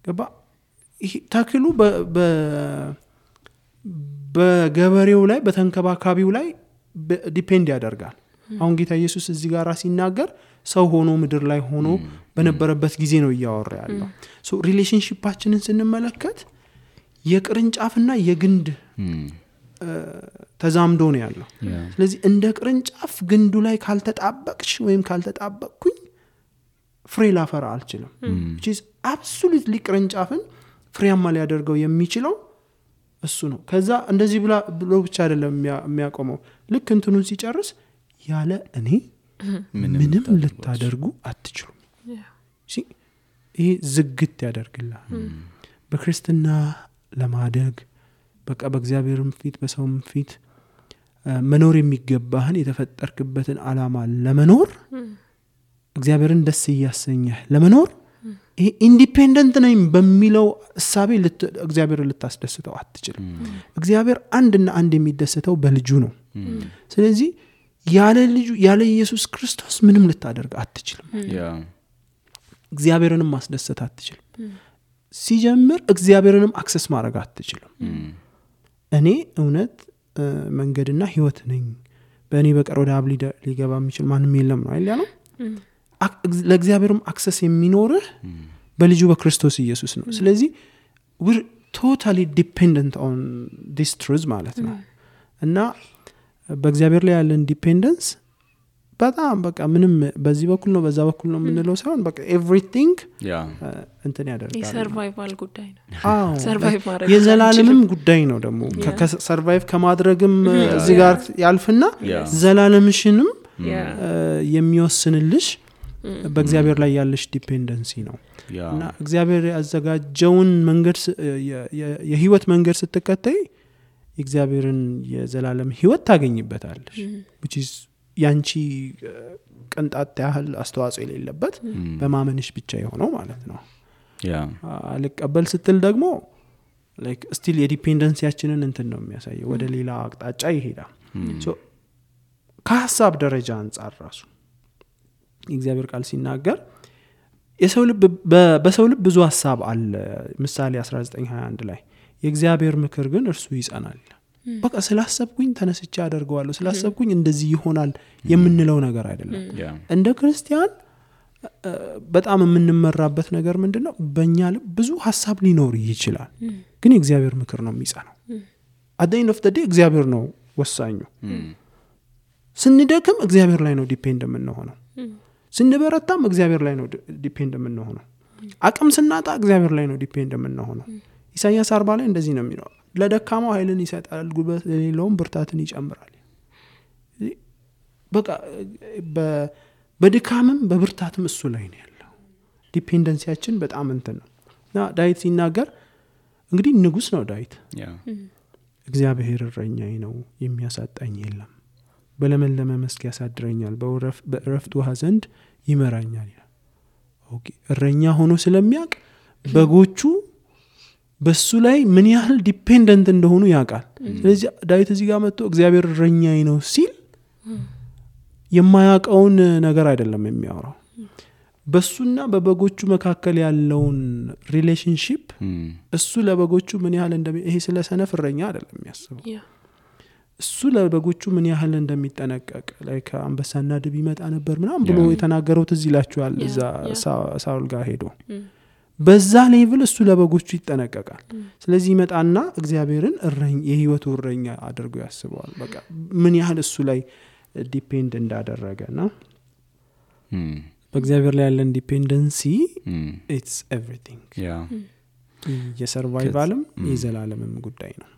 ገባ? ተክሉ በገበሬው ላይ በተንከባካቢው ላይ ዲፔንድ ያደርጋል። አሁን ጌታ ኢየሱስ እዚህ ጋር ሲናገር ሰው ሆኖ ምድር ላይ ሆኖ በነበረበት ጊዜ ነው እያወራ ያለው። ሪሌሽንሺፓችንን ስንመለከት የቅርንጫፍና የግንድ ተዛምዶ ነው ያለው። ስለዚህ እንደ ቅርንጫፍ ግንዱ ላይ ካልተጣበቅሽ ወይም ካልተጣበቅኩኝ ፍሬ ላፈራ አልችልም። which is absolutely ቅርንጫፍን ፍሬያማ ሊያደርገው የሚችለው እሱ ነው። ከዛ እንደዚህ ብሎ ብቻ አይደለም የሚያቆመው። ልክ እንትኑን ሲጨርስ ያለ እኔ ምንም ልታደርጉ አትችሉም። ይሄ ዝግት ያደርግላል። በክርስትና ለማደግ በቃ በእግዚአብሔርም ፊት በሰውም ፊት መኖር የሚገባህን የተፈጠርክበትን ዓላማ ለመኖር እግዚአብሔርን ደስ እያሰኘህ ለመኖር ይሄ ኢንዲፔንደንት ነኝ በሚለው እሳቤ እግዚአብሔርን ልታስደስተው አትችልም። እግዚአብሔር አንድና አንድ የሚደሰተው በልጁ ነው። ስለዚህ ያለ ኢየሱስ ክርስቶስ ምንም ልታደርግ አትችልም። እግዚአብሔርንም ማስደሰት አትችልም። ሲጀምር እግዚአብሔርንም አክሰስ ማድረግ አትችልም። እኔ እውነት መንገድና ህይወት ነኝ፣ በእኔ በቀር ወደ አብ ሊገባ የሚችል ማንም የለም ነው አይደል ያለው? ለእግዚአብሔርም አክሰስ የሚኖርህ በልጁ በክርስቶስ ኢየሱስ ነው። ስለዚህ we're totally dependent on this truth ማለት ነው። እና በእግዚአብሔር ላይ ያለን ዲፔንደንስ በጣም በቃ ምንም በዚህ በኩል ነው በዛ በኩል ነው የምንለው ሳይሆን በቃ everything እንትን ያደርጋል። የሰርቫይቫል ጉዳይ ነው። ሰርቫይቭ ማድረግ የዘላለምም ጉዳይ ነው ደግሞ ከሰርቫይቭ ከማድረግም እዚህ ጋር ያልፍና ዘላለምሽንም የሚወስንልሽ በእግዚአብሔር ላይ ያለሽ ዲፔንደንሲ ነው። እና እግዚአብሔር ያዘጋጀውን መንገድ የህይወት መንገድ ስትከተይ እግዚአብሔርን የዘላለም ህይወት ታገኝበታለሽ which is ያንቺ ቅንጣት ያህል አስተዋጽኦ የሌለበት በማመንሽ ብቻ የሆነው ማለት ነው። አልቀበል ስትል ደግሞ like still የዲፔንደንሲያችንን እንትን ነው የሚያሳየው ወደ ሌላ አቅጣጫ ይሄዳል። so ከሐሳብ ደረጃ አንፃር ራሱ እግዚአብሔር ቃል ሲናገር በሰው ልብ ብዙ ሐሳብ አለ። ምሳሌ 19:21 ላይ የእግዚአብሔር ምክር ግን እርሱ ይጸናል። በቃ ስላሰብኩኝ ተነስቼ አደርገዋለሁ ስላሰብኩኝ እንደዚህ ይሆናል የምንለው ነገር አይደለም። እንደ ክርስቲያን በጣም የምንመራበት ነገር ምንድነው? በእኛ ልብ ብዙ ሐሳብ ሊኖር ይችላል ግን የእግዚአብሔር ምክር ነው የሚጸናው። at the end of the day እግዚአብሔር ነው ወሳኙ። ስንደክም እግዚአብሔር ላይ ነው ዲፔንድ የምንሆነው። ስንበረታም እግዚአብሔር ላይ ነው ዲፔንድ የምንሆነው። አቅም ስናጣ እግዚአብሔር ላይ ነው ዲፔንድ የምንሆነው። ኢሳይያስ 40 ላይ እንደዚህ ነው የሚለው ለደካማው ኃይልን ይሰጣል ጉልበት ለሌለውም ብርታትን ይጨምራል። በቃ በድካምም በብርታትም እሱ ላይ ነው ያለው። ዲፔንደንሲያችን በጣም እንትን ነው። እና ዳዊት ሲናገር እንግዲህ ንጉስ ነው ዳዊት እግዚአብሔር እረኛዬ ነው የሚያሳጣኝ የለም በለመለመ መስክ ያሳድረኛል በእረፍት ውሃ ዘንድ ይመራኛል ይላል። ኦኬ እረኛ ሆኖ ስለሚያውቅ በጎቹ በሱ ላይ ምን ያህል ዲፔንደንት እንደሆኑ ያውቃል። ስለዚህ ዳዊት እዚህ ጋር መጥቶ እግዚአብሔር እረኛዬ ነው ሲል የማያውቀውን ነገር አይደለም የሚያወራው። በሱና በበጎቹ መካከል ያለውን ሪሌሽንሺፕ እሱ ለበጎቹ ምን ያህል ይሄ ስለ ሰነፍ እረኛ አይደለም የሚያስበው። እሱ ለበጎቹ ምን ያህል እንደሚጠነቀቅ ላይ ከአንበሳና ድብ ይመጣ ነበር ምናምን ብሎ የተናገረው ትዝ ይላችኋል። እዛ ሳውል ጋር ሄዶ በዛ ሌቭል እሱ ለበጎቹ ይጠነቀቃል። ስለዚህ ይመጣና እግዚአብሔርን የህይወቱ እረኛ አድርጎ ያስበዋል። በቃ ምን ያህል እሱ ላይ ዲፔንድ እንዳደረገና በእግዚአብሔር ላይ ያለን ዲፔንደንሲ it's everything የሰርቫይቫልም የዘላለምም ጉዳይ ነው።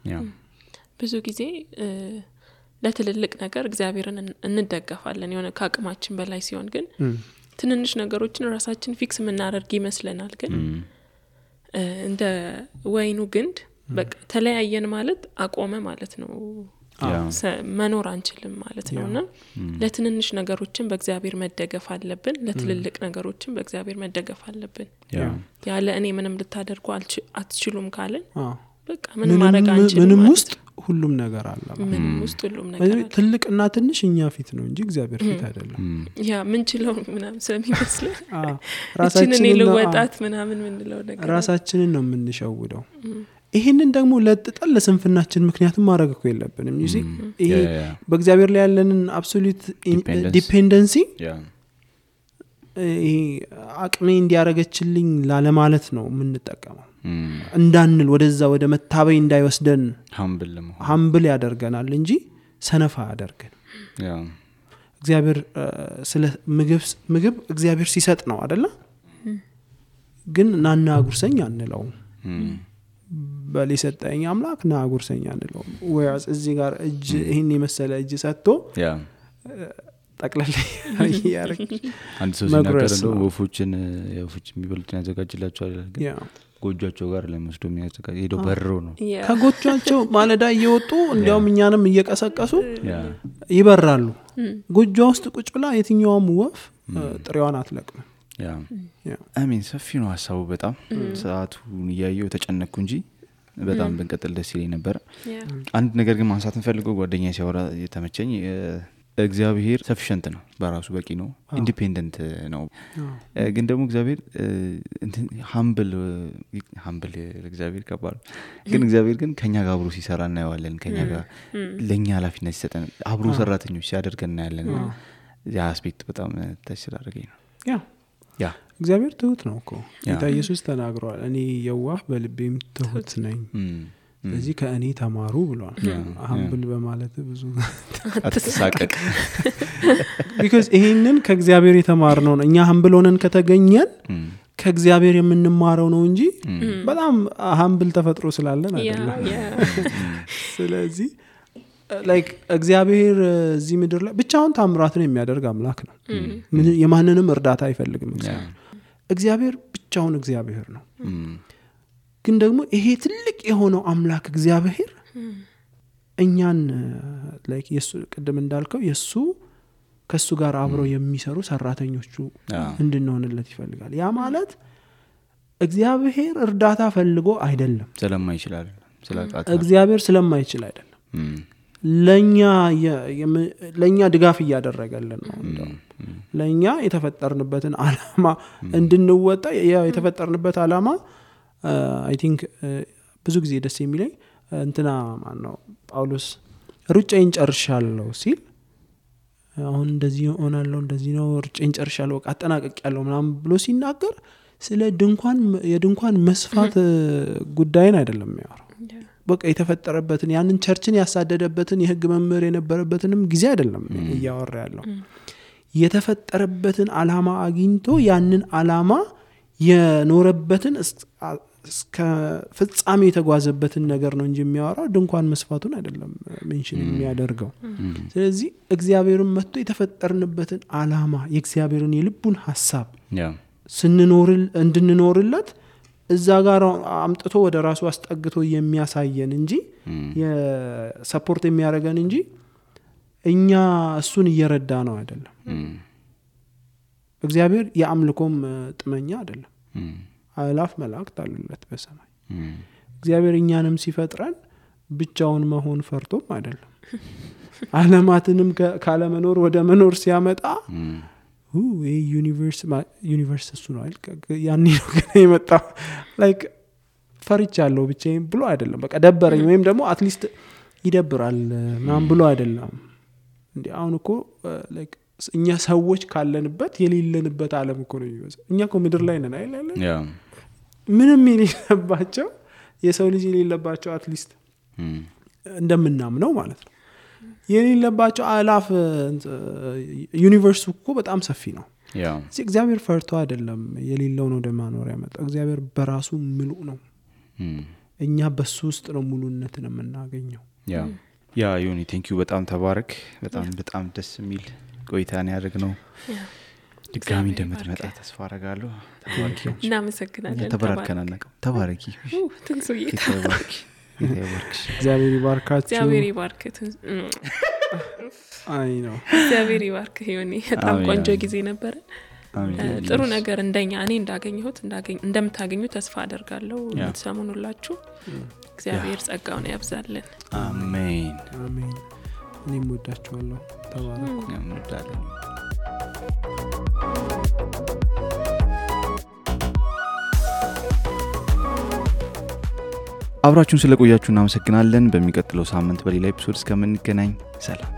ብዙ ጊዜ ለትልልቅ ነገር እግዚአብሔርን እንደገፋለን የሆነ ከአቅማችን በላይ ሲሆን ግን ትንንሽ ነገሮችን ራሳችን ፊክስ ምናደርግ ይመስለናል። ግን እንደ ወይኑ ግንድ በቃ ተለያየን ማለት አቆመ ማለት ነው። መኖር አንችልም ማለት ነውና ለትንንሽ ነገሮችን በእግዚአብሔር መደገፍ አለብን ለትልልቅ ነገሮችን በእግዚአብሔር መደገፍ አለብን። ያለ እኔ ምንም ልታደርጉ አትችሉም ካለን በቃ ምንም ማድረግ አንችልም። ምንም ውስጥ ሁሉም ነገር አለ። ምንም ውስጥ ሁሉም ነገር አለ። ትልቅና ትንሽ እኛ ፊት ነው እንጂ እግዚአብሔር ፊት አይደለም። ምን ችለው ምናምን ስለሚመስል ራሳችንን ለወጣት ምናምን ምንለው ነገር ራሳችንን ነው የምንሸውደው። ይሄንን ደግሞ ለጥጠል ለስንፍናችን ምክንያቱም ማድረግ እኮ የለብንም። ይሄ በእግዚአብሔር ላይ ያለንን አብሶሉት ዲፔንደንሲ ይሄ አቅሜ እንዲያረጋችልኝ ላለማለት ነው የምንጠቀመው። እንዳንል ወደዛ ወደ መታበይ እንዳይወስደን humble ያደርገናል እንጂ ሰነፋ ያደርገን። እግዚአብሔር ስለ ምግብ እግዚአብሔር ሲሰጥ ነው አይደለ? ግን ናና ጉርሰኛ አንለው። በሊሰጠኝ አምላክ ና ጉርሰኛ አንለው። ወይስ እዚህ ጋር እጅ ይሄን የመሰለ እጅ ሰጥቶ ጠቅላላ ያርክ አንድ ሰው ሲናገር ነው ወፎችን የሚበሉትን ያዘጋጅላቸዋል ግን ጎጆቻቸው ጋር ለመስዶ የሚያዘጋጅ ሄዶ በርሮ ነው ከጎጆቻቸው ማለዳ እየወጡ እንዲያውም እኛንም እየቀሰቀሱ ይበራሉ። ጎጆ ውስጥ ቁጭ ብላ የትኛውም ወፍ ጥሬዋን አትለቅም። አሜን ሰፊ ነው ሐሳቡ በጣም ሰዓቱን ያየው ተጨነኩ እንጂ በጣም ብንቀጥል ደስ ይለኝ ነበር። አንድ ነገር ግን ማንሳት እንፈልገው ጓደኛዬ ሲያወራ የተመቸኝ እግዚአብሔር ሰፊሽንት ነው በራሱ በቂ ነው ኢንዲፔንደንት ነው። ግን ደግሞ እግዚአብሔር humble እግዚአብሔር ከባድ ግን እግዚአብሔር ግን ከኛ ጋር አብሮ ሲሰራ እናየዋለን። ከኛ ጋር ለኛ ኃላፊነት ሲሰጠን አብሮ ሰራተኞች ሲያደርገን እናያለን። ያ አስፔክት በጣም ተስራ አድርገኝ ነው። ያ እግዚአብሔር ትሁት ነው እኮ ጌታ ኢየሱስ ተናግሯል እኔ የዋህ በልቤም ትሁት ነኝ ስለዚህ ከእኔ ተማሩ ብሏል humble በማለት ብዙ አትሳቀቅ because ይሄንን ከእግዚአብሔር የተማርነው ነው እኛ humble ሆነን ከተገኘን ከእግዚአብሔር የምንማረው ነው እንጂ በጣም humble ተፈጥሮ ስላለን አይደለም ስለዚህ like እግዚአብሔር እዚህ ምድር ላይ ብቻውን ታምራትን የሚያደርግ አምላክ ነው የማንንም እርዳታ አይፈልግም እግዚአብሔር ብቻውን እግዚአብሔር ነው ግን ደግሞ ይሄ ትልቅ የሆነው አምላክ እግዚአብሔር እኛን like የሱ ቅድም እንዳልከው የሱ ከሱ ጋር አብረው የሚሰሩ ሰራተኞቹ እንድንሆንለት ይፈልጋል ያ ማለት እግዚአብሔር እርዳታ ፈልጎ አይደለም ስለማይችላል እግዚአብሔር ስለማይችል አይደለም ለኛ ድጋፍ እያደረገልን ነው እንደው ለኛ የተፈጠርንበትን ዓላማ እንድንወጣ የተፈጠርንበት ዓላማ I think ብዙ ጊዜ ደስ የሚለኝ እንትና ማን ነው ጳውሎስ ሩጫዬን ጨርሻለሁ ሲል አሁን እንደዚህ ሆናለሁ እንደዚህ ነው ሩጫዬን ጨርሻለሁ አጠናቅቄያለሁ ምናምን ብሎ ሲናገር ስለ የድንኳን መስፋት ጉዳይን አይደለም የሚያወራው በቃ የተፈጠረበትን ያንን ቸርችን ያሳደደበትን የህግ መምህር የነበረበትንም ጊዜ አይደለም እያወራ ያለው የተፈጠረበትን ዓላማ አግኝቶ ያንን ዓላማ የኖረበትን እስከ ፍጻሜ የተጓዘበትን ነገር ነው እንጂ የሚያወራው ድንኳን መስፋቱን አይደለም ሜንሽን የሚያደርገው ስለዚህ እግዚአብሔርን መጥቶ የተፈጠርንበትን ዓላማ የእግዚአብሔርን የልቡን ሐሳብ እንድንኖርለት እዛ ጋር አምጥቶ ወደ ራሱ አስጠግቶ የሚያሳየን እንጂ የሰፖርት የሚያደርገን እንጂ እኛ እሱን እየረዳ ነው አይደለም እግዚአብሔር የአምልኮም ጥመኛ አይደለም አላፍ መላእክት አሉለት በሰማይ እግዚአብሔር እኛንም ሲፈጥረን ብቻውን መሆን ፈርቶም አይደለም ዓለማትንም ካለ መኖር ወደ መኖር ሲያመጣ ዩኒቨርስ እሱ ነው ያኔ ነው ገና የመጣው like ፈርቻለሁ ብቻዬን ብሎ አይደለም በቃ ደበረኝ ወይም ደግሞ አትሊስት ይደብራል ማን ብሎ አይደለም እንዴ አሁን እኮ like እኛ ሰዎች ካለንበት የሌለንበት ዓለም እኮ ነው የሚወጣው እኛ እኮ ምድር ላይ ነን አይደል ምንም የሌለባቸው የሰው ልጅ የሌለባቸው አትሊስት እንደምናምነው ማለት ነው የሌለባቸው አላፍ ዩኒቨርስ እኮ በጣም ሰፊ ነው እግዚአብሔር ፈርቶ አይደለም የሌለው ነው ደማኖር ያመጣው እግዚአብሔር በራሱ ሙሉ ነው እኛ በሱ ውስጥ ነው ሙሉነትን የምናገኘው ዮኒ ቴንክ ዩ በጣም ተባረክ በጣም ደስ የሚል ቆይታን ያደርግነው ድጋሚ እንደምትመጣ ተስፋ አደርጋለሁ ተባረኪ እናመሰግናለን ተባረኪ ትንሱዬ እግዚአብሔር ይባርካችሁ እግዚአብሔር ይባርክት አይ ነው እግዚአብሔር ይባርክ ዮኒ በጣም ቆንጆ ጊዜ ነበር ጥሩ ነገር እንደኛ እኔ እንደምታገኙ ተስፋ አደርጋለሁ የምትሰሙን ሁላችሁ እግዚአብሔር ጸጋውን ያብዛልን አሜን እኔም ወዳችኋለሁ ተባረኩ እንወዳለን አብራችሁን ስለቆያችሁ እናመሰግናለን በሚቀጥለው ሳምንት በሌላ ኤፒሶድ እስከምንገናኝ ሰላም